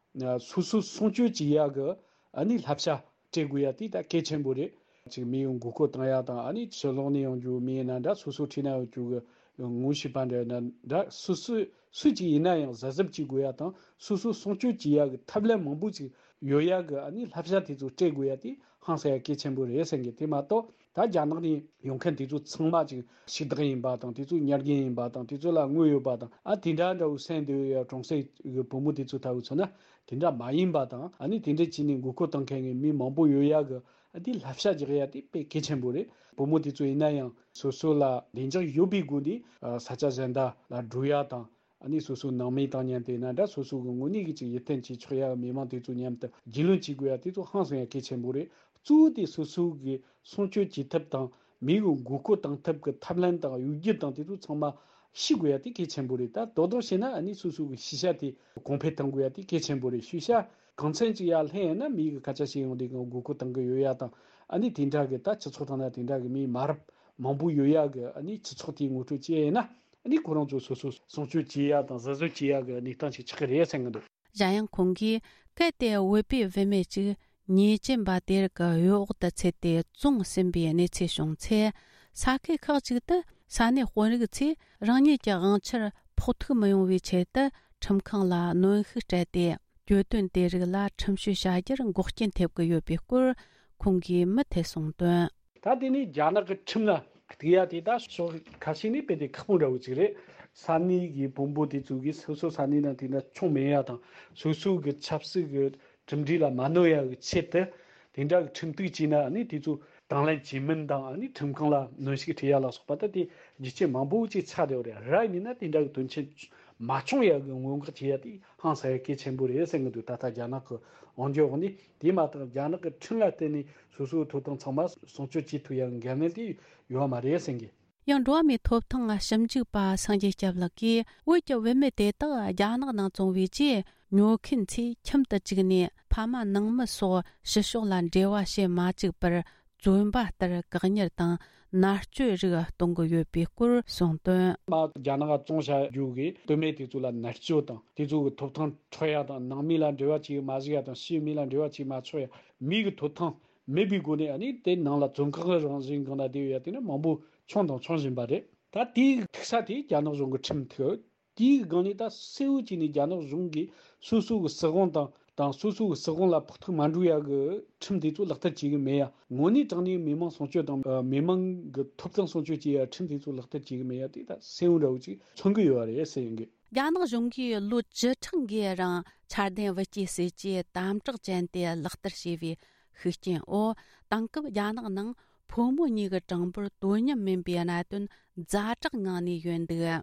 སོ་སོ་སྲུང་སྐྱོབ་བྱེད་ཡ་གི་ཨ་ནི་བསླབ་བྱ་སྤྲད་དགོས་ཡ་དེ་ད་གལ་ཆེན་པོ་རེད། ཅིག་མི་ཡོང་མགོ་སྐོར་བཏང་ཡ་དང་། ཨ་ནི་ཕྱི་ལོགས་ནས་ཡོང་རྒྱུ་མི་ཡིན་ན་འདྲ། སོ་སོ་འཁྲིས་ན་ཡོང་རྒྱུ་གི་ངོ་ཤེས་པ་འདྲ་ཡིན་ན་འདྲ། སོ་སོ་སུ་ཅིག་ཡིན་ན་ཡང་གཟབ་གཟབ་བྱེད་དགོས་ཡ་དང་། སོ་སོ་སྲུང་སྐྱོབ་བྱེད་ཡ་གི་ཐབས་ལམ་མང་པོ་ཅིག་ཡོད་ཡ་གི་ཨ་ནི་བསླབ་བྱ་དེ་ཚོ་སྤྲད་དགོས་ཡ་དེ་ཧང་སང་ཡ་གལ་ཆེན་པོ་རེད་བསམ་གི། དེ་མ་གཏོགས་ད་རྒྱ་ནག་ནས་ཡོང་མཁན་དེ་ཚོ་ཚང་མ་ཅིག་ཕྱུག་བདག་ཡིན་པ་དང་། དེ་ཚོ་ཉར་རྒན་ཡིན་པ་དང་། དེ་ཚོ་ལ་དངུལ་ཡོད་པ་དང་། ཨ་དེ་འདྲ་འདྲ་བོ་སེམས་བདེ་བའི་གྲོང་གསེབ་གི་བུ་མོ་དེ་ཚོ་ལྟ་བུ་མཚོན་ན་དེ་འདྲ་མ་ཡིན་པ་དང་། ཨ་ནི་དེ་འདྲ་བྱས་ནས་མགོ་སྐོར་བཏང་མཁན་གི་མི་མང་པོ་ཡོད་ཡ་གི་ཨ་དེ་བསླབ་བྱ་རྒྱག་ཡ་དེ་དཔེ་གལ་ཆེན་པོ་རེད། བུ་མོ་དེ་ཚོ་ཡིན་ན་ཡང་སོ་སོ་ལ་བདེ་འཇགས་ཡོད་པའི་སྒོ་ནས་ས་ཆ་གཞན་དག་ལ་འགྲོ་ཡ་དང་། ཨ་ནི་སོ་སོའི་ནང་མི་དང་མཉམ་དུ་ཡིན་ན་འདྲ། སོ་སོ་གི་དངོས་གནས་ཀྱི་ཅིག་ཡིད་རྟོན་བྱེད་ཆོག་ཡ་མི་མང་དེ་ཚོ་མཉམ་དུ་རྒྱུས་ལོན་བྱེད་དགོས་ཡ་དེ་ཚོ་ཧང་སང་ཡ་གལ་ཆེན་པོ་རེད། གཙོ་བོ་དེ་སོ་སོ་གི་སྲུང་སྐྱོབ་བྱེད་ཐབས་དང་། མི་གི་མགོ་སྐོར་བཏང་ཐབས་ཀྱི་ཐབས་ལམ་དང་གཡོ་སྒྱུ་དང་དེ་ཚོ་ཚང་མ་ཤེས་དགོས་ཡ་དེ་གལ་ཆེན་པོ་རེད། ད་རྡོག་རྡོག་བྱས་ན་ཨ་ནི་སོ་སོ་གི་ཤེས་བྱ་དེ་གོང་འཕེལ་གཏང་དགོས་ཡ་དེ་གལ་ཆེན་པོ་རེད། ཤེས་བྱ་གང་འཚམ་ཅིག་ཡར་ལྷན་ཡིན་ན་མི་གི་སྐད་ཆ་བཤད་ཡོང་དུས་གང་མགོ་སྐོར་བཏང་གི་ཡོད་ཡ་དང་། ཨ་ནི་དེ་འདྲ་གི་ད་སྤྱི་ཚོགས་ཐོག་ན་དེ་འདྲ་གི་མི་མ་རབས་མང་པོ་ཡོད་ཡ་གི་ཨ་ནི་སྤྱི་ཚོགས་དེ་ངོ་སྤྲོད་བྱས་ཡིན་ན། ཨ་ནི་ཁོ་རང་ཚོ་སོ་སོ་སྲུང་སྐྱོབ་བྱེད་ཡ་དང་གཟབ་གཟབ་བྱེད་ཡ་གི་གནས་སྟངས་ཤིག་ཆགས་ཀྱི་རེད་བསམ་གྱི་འདུག་གཞན་ཡང་ཁོང་གིས་གལ་ཏེ་བོད་པའི་བུད་མེད་ཅིག་ཉེས་ཅན་པ་དེ་རིགས་ཀྱི་གཡོ་འོག་ཏུ་ཚུད་དེ་བཙོང་ཟིན་པའི་གནས་ཚུལ་བྱུང་ཚེ། ས་ཁུལ་ཁག་ཅིག་ཏུ་ས་གནས་དཔོན་རིགས་ཚོས་རང་ཉིད་ཀྱི་དབང་ཆར་ཕོག་ཐུག་མི་ཡོང་བའི་ཆེད་དུ་ཁྲིམས་ཁང་ལ་གནོན་ཤུགས་སྤྲད་དེ། གྱོད་དོན་དེ་རིགས་ལ་ཁྲིམས་གཅོད་བྱ་རྒྱུར་འགོག་རྐྱེན་ཐེབས་ཀྱི་ཡོད་པའི་སྐོར་ཁོང་གིས་མུ་མཐུད་གསུངས་དོན། ད་དེ་ནི་རྒྱ་ནག་གི་ཁྲིམས་ལ་ གཏུག་ཡ་དེ་ད་ཕྱོགས་ཁ་ཤས་ནས་དཔེ་དེ་ཁག་པོ་འདྲ་བོ་ཅིག་རེད། ས་གནས་ཀྱི་བོན་པོ་དེ་ཚོ་གིས་སོ་སོ་ས་གནས་ནང་དེ་འདྲ་ཆུང་མེད་ཡ་དང་། སོ་སོ་གི་ཆབ་སྲིད་ཀྱི་གྲུབ་འབྲས་ལ་མ་གནོད་ཡ་གི་ཆེད་དུ། དེ་འདྲ་གི་ཁྲིམས་གཏུག་བྱས་ན་ཨ་ནི་དེ་ཚོ་དང་ལེན་བྱེད་མིན་དང་། ཨ་ནི་ཁྲིམས་ཁང་ལ་གནོན་ཤུགས་སྤྲད་ཡ་ལ་སོགས་པ་ད་དེ་རྒྱུ་རྐྱེན་མང་པོ་ཅིག་ཆགས་བསྡད་ཡོད་རེད། ར་ཡིན་ན་དེ་འདྲ་གི་དོན་ཆེན་མ་བྱུང་ཡ་གི་སྔོན་འགོག་བྱེད་ཡ་དེ་ཧང་སང་ཡ་གལ་ཆེན་པོ་རེད་ཟེར་གི་འདུག་ད་ལྟ་རྒྱ་ནག་གི་དབང་སྒྱུར་འོག་ནས། དེ་མ་གཏོགས་རྒྱ་ནག་གི་ཁྲིམས་ལ་བརྟེན་ནས་སོ་སོའི་ཐོབ་ཐང་ཚང་མ་སྲུང་སྐྱོབ་བྱེད་ཐུབ་ཡ་གི་འགན་ལེན་དེ་ཡོད་མ་རེད་ཟེར་གི། ཡང་འགྲོ་བ་མིའི་ཐོབ་ཐང་ཞིབ་འཇུག་པ་སངས་རྒྱས་སྐྱབས་ལགས་ཀྱིས། བོད་ཀྱི་བུད་མེད་དེ་དག་རྒྱ་ནག་ནང་བཙོང་བའི་རྗེས། ཉོ་མཁན་ཚོས་ཁྱིམ་དུ་བཅུག་ནས་ཕ་མ་ནང་མི་སོགས་ཕྱི་ཕྱོགས་ལ་འབྲེལ་བ་བྱེད་མ་བཅུག་པར། བཙོན་པ་ལྟར་བཀག་ཉར་དང་མནར་གཅོད་རིགས་གཏོང་གི་ཡོད་པའི་སྐོར་གསུངས་དོན། མ་རྒྱ་ནག་ག་བཙོང་བྱ་རྒྱུ་གི་སྟོད་སྨད་དེ་ཚོ་ལ་མནར་གཅོད་དང་། དེ་ཚོ་གི་ཐོབ་ཐང་འཕྲོག་ཡ་དང་། ནང་མི་ལ་འབྲེལ་བ་བྱེད་མ་བཅུག་ཡ་དང་། ཕྱིའི་མི་ལ་འབྲེལ་བ་བྱེད་མ་ཆོག་ཡ། མི་གི་ཐོབ་ཐང་མེད་པའི་སྒོ་ནས་ཨ་ནི་དེ་ནང་ལ་བཙོན་ཁང་གི་རང་བཞིན་སྒང་ལ་བསྡད་ཡོད་ཡ་དེ་ནི་མང་པོ་བྱུང་དང་འབྱུང་བཞིན་པ་རེད། ད་དེའི་ཐུག་ས་དེ་རྒྱ་ནག་གཞུང་གི་ཁྲིམས་ཐོག་དེའི་སྒང་ནས་ད་གསལ་བོ་བྱས་ནས་རྒྱ་ནག་གཞུང་གིས་སོ་སོ་གི་སྲིད་དབང་དང་། དང་སོ་སོ་གི་སྲིད་དབང་ལ་ཕོག་ཐུག་མ་འགྲོ་ཡ་གི་ཁྲིམས་དེ་ཚོ་ལག་བསྟར་བྱེད་གི་མེད་ཡ། དངོས་གནས་དྲང་གནས་མི་མང་སྲུང་སྐྱོབ་དང་། ཨ། མི་མང་གི་ཐོབ་ཐང་སྲུང་སྐྱོབ་བྱེད་ཡ་ཁྲིམས་དེ་ཚོ་ལག་བསྟར་བྱེད་གི་མེད་ཡ་དེ་ད་གསལ་བོ་འདྲ་བོ་ཅིག་མཚོན་གི་ཡོད་རེད་ཟེར་ཡིན་གི། རྒྱ་ནག་གཞུང་གིས་ལོ་བཅུ་ཕྲག་འགའི་རིང་འཆར་ལྡན་བུ་སྐྱེས་སྲིད་ཇུས་དམ་དྲག་ཅན་དེ་ལག་བསྟར་བྱས་པའི་ཤུགས་རྐྱེན་འོག་དེང་སྐབས་རྒྱ་ནག་ནང་ཕོ་མོ་གཉིས་ཀྱི་གྲངས་འབོར་དོ་མཉམ་མིན་པའི་གནད་དོན་ཛ་དྲག་ངང་ནས་ཡོད་འདུག།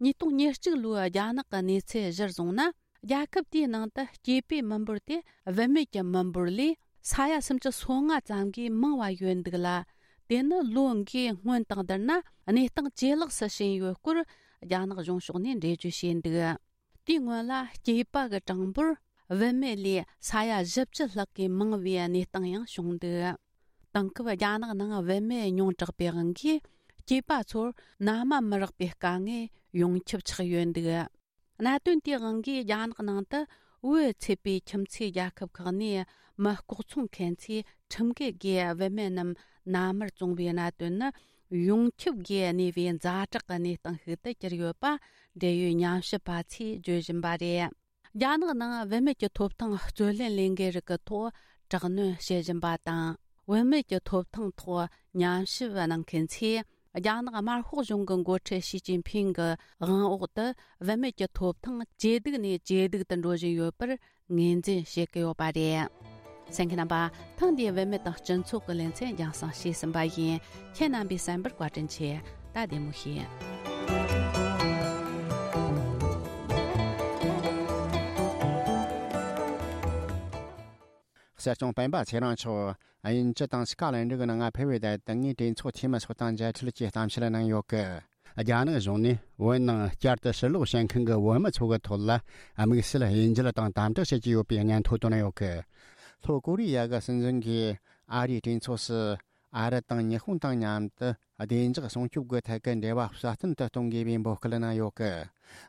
ཉིས་སྟོང་ཉེར་གཅིག་ལོའི་རྒྱ་ནག་གི་གནས་ཚུལ་གཞིར་བཟུང་ན། རྒྱལ་ཁབ་དེའི་ནང་དུ་སྐྱེས་པའི་མི་འབོར་དེ་བུད་མེད་ཀྱི་མི་འབོར་ལས་ས་ཡ་སུམ་ཅུ་སོ་ལྔ་ཙམ་གྱིས་མང་བ་ཡོད་འདུག་ལ། དེ་ནི་ལོ་འགའི་སྔོན་དང་བསྡུར་ན་གནས་སྟངས་ཇེ་ལེགས་སུ་ཕྱིན་ཡོད་སྐོར་རྒྱ་ནག་གཞུང་ཕྱོགས་ནས་འགྲེལ་བརྗོད་བྱས་འདུག། དེའི་སྔོན་ལ་སྐྱེས་པ་གི་གྲངས་འབོར་བུད་མེད་ལས་ས་ཡ་བཞི་བཅུ་ལྷག་གིས་མང་བའི་གནས་སྟངས་ཡང་བྱུང་འདུག། དེང་སྐབས་རྒྱ་ནག་ནང་བུད་མེད་ཉུང་དྲགས་པའི་དབང་གིས་སྐྱེས་པ་ཚོར་མནའ་མ་མི་རག་པའི་དཀའ་ངལ་ཡོངས་ཁྱབ་ཆགས་ཡོད་འདུག། གནད་དོན་དེའི་དབང་གིས་རྒྱ་ནག་ནང་དུ་བོད་ཚད་པའི་ཁྱིམ་མཚེས་རྒྱལ་ཁབ་ཁག་ནས་མི་ལྐོག་ཚོང་མཁན་ཚོས་ཁྲིམས་འགལ་སྒོས་བུད་མེད་རྣམས་མནའ་མར་བཙོང་བའི་གནད་དོན་ནི་ཡོངས་ཁྱབ་སྒོས་གནས་པའི་ཛ་དྲག་གི་གནས་སྟངས་ཤིག་ཏུ་གྱུར་ཡོད་པ་འབྲེལ་ཡོད་ཉམས་ཞིབ་པ་ཚོས་བརྗོད་བཞིན་པ་རེད། རྒྱ་ནག་ནང་བུད་མེད་ཀྱི་ཐོབ་ཐང་རྩོད་ལེན་ལས་འགུལ་རིགས་ཀྱི་ཐོག་དྲག་གནོན་བྱེད་བཞིན་པ་དང་། བུད་མེད་ཀྱི་ཐོབ་ཐང་ཐོག་ཉམས་ཞིབ་གནང་མཁན་ཚོས། རྒྱ་ནག་དམར་ཤོག་གཞུང་གི་འགོ་ཁྲིད་ཞི་ཅིན་ཕིང་གི་དབང་འོག་ཏུ་བུད་མེད་ཀྱི་ཐོབ་ཐང་ཇེ་སྡུག་ནས་ཇེ་སྡུག་ཏུ་འགྲོ་བཞིན་ཡོད་པར་ངོས་འཛིན་བྱེད་ཀྱི་ཡོད་པ་རེད། གསན་མཁན་རྣམ་པ། ཐེངས་འདིའི་བུད་མེད་དང་སྤྱི་ཚོགས་ཀྱི་ལེ་ཚན་རྒྱང་སྲིང་བྱས་ཟིན་པ་ཡིན། ཁྱེད་རྣམ་པས་གསན་པར་བཀའ་དྲིན་ཆེ། ད་བདེ་མོ་བྱོས། གསར་སྐྱོང་སྤེན་པ་ཚེ་རིང་མཆོག་དབྱིན་ཇི་དང་སི་ཀ་ལན་ཌི་གི་ནང་ཕེབས་པའི་དུས་དེ་ངས་གྲོས་ཚོགས་འཐུས་མི་ཚོ་དང་མཇལ་འཕྲད་ཀྱིས་གཏམ་བཤད་གནང་ཡོད་གི། རྒྱ་ནག་གཞུང་ནས་བོད་ནང་བསྐྱར་དུ་ཕྱིར་ལོག་བྱེད་མཁན་གྱི་བོད་མི་ཚོ་གི་ཐོག་ལ་དམིགས་བསལ་དབྱེ་འབྱེད་དང་དམ་དྲག་བྱེད་ཀྱི་ཡོད་པའི་སྙན་ཐོ་བཏོན་ཡོད་གི། ལྷོ་ཀོ་རི་ཡ་གི་སྲིད་འཛིན་གྱིས་ཨ་རིའི་གྲོས་ཚོགས་སུ་ཨ་རི་དང་ཉི་ཧོང་དང་མཉམ་དུ་བདེ་འཇགས་སྲུང་སྐྱོབ་ཀྱི་ཐད་ཀྱི་འབྲེལ་བ་སྲ་བརྟན་དུ་གཏོང་དགོས་པའི་འབོད་སྐུལ་གནང་ཡོད་གི།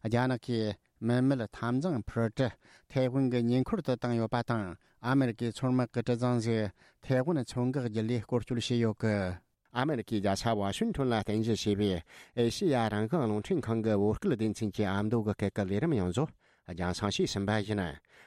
རྒྱ་ནག་གིས་མི་མེད་འཐབ་འཛིང་འཕུར་གྲུ་ཐའེ་ཝན་གྱི་ཉེ་འཁོར་དུ་བཏང་ཡོད་པ་དང་། ཨ་མེ་རི་ཀའི་མཚོ་དམག་གི་གྲུ་གཟིངས་ཤིག་ཐའེ་ཝན་མཚོ་འགག་བརྒྱུད་ལས་སྐོར་སྐྱོད་བྱས་ཡོད་གི། ཨ་མེ་རི་ཀའི་རྒྱལ་ས་ཝ་ཤིང་ཊོན་ལ་རྟེན་གཞི་བྱས་པའི་ཨེ་ཤེ་ཡ་རང་དབང་རླུང་འཕྲིན་ཁང་གི་བོད་སྐད་སྡེ་ཚན་གྱི་ཨ་མདོ་གི་སྐད་ཀྱི་ལས་རིམ་ཡོངས་རྫོགས་རྒྱང་སྲིང་བྱས་ཟིན་པ་ཡིན།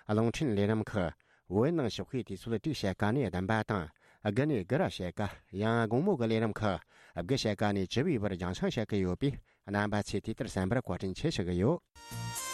རླུང་འཕྲིན་ལས་རིམ་ཁག་བོད་ནང་ཞོགས་ཀའི་དུས་ཚོད་དྲུག་ཕྱེད་ཀ་ནས་བདུན་པ་དང་། དགུ་ནས་དགུ་ར་ཕྱེད་ཀ། ཡང་དགོང་མོ་གི་ལས་རིམ་ཁག་དགུ་ཕྱེད་ཀ་ནས་བཅུ་པའི་བར་རྒྱང་སྲིང་བྱེད་ཀྱི་ཡོད་པས། རྣམ་པ་ཚོས་དེ་ལྟར་གསན་པར་བཀའ་དྲིན་ཆེ་ཞུ་གི་ཡོད།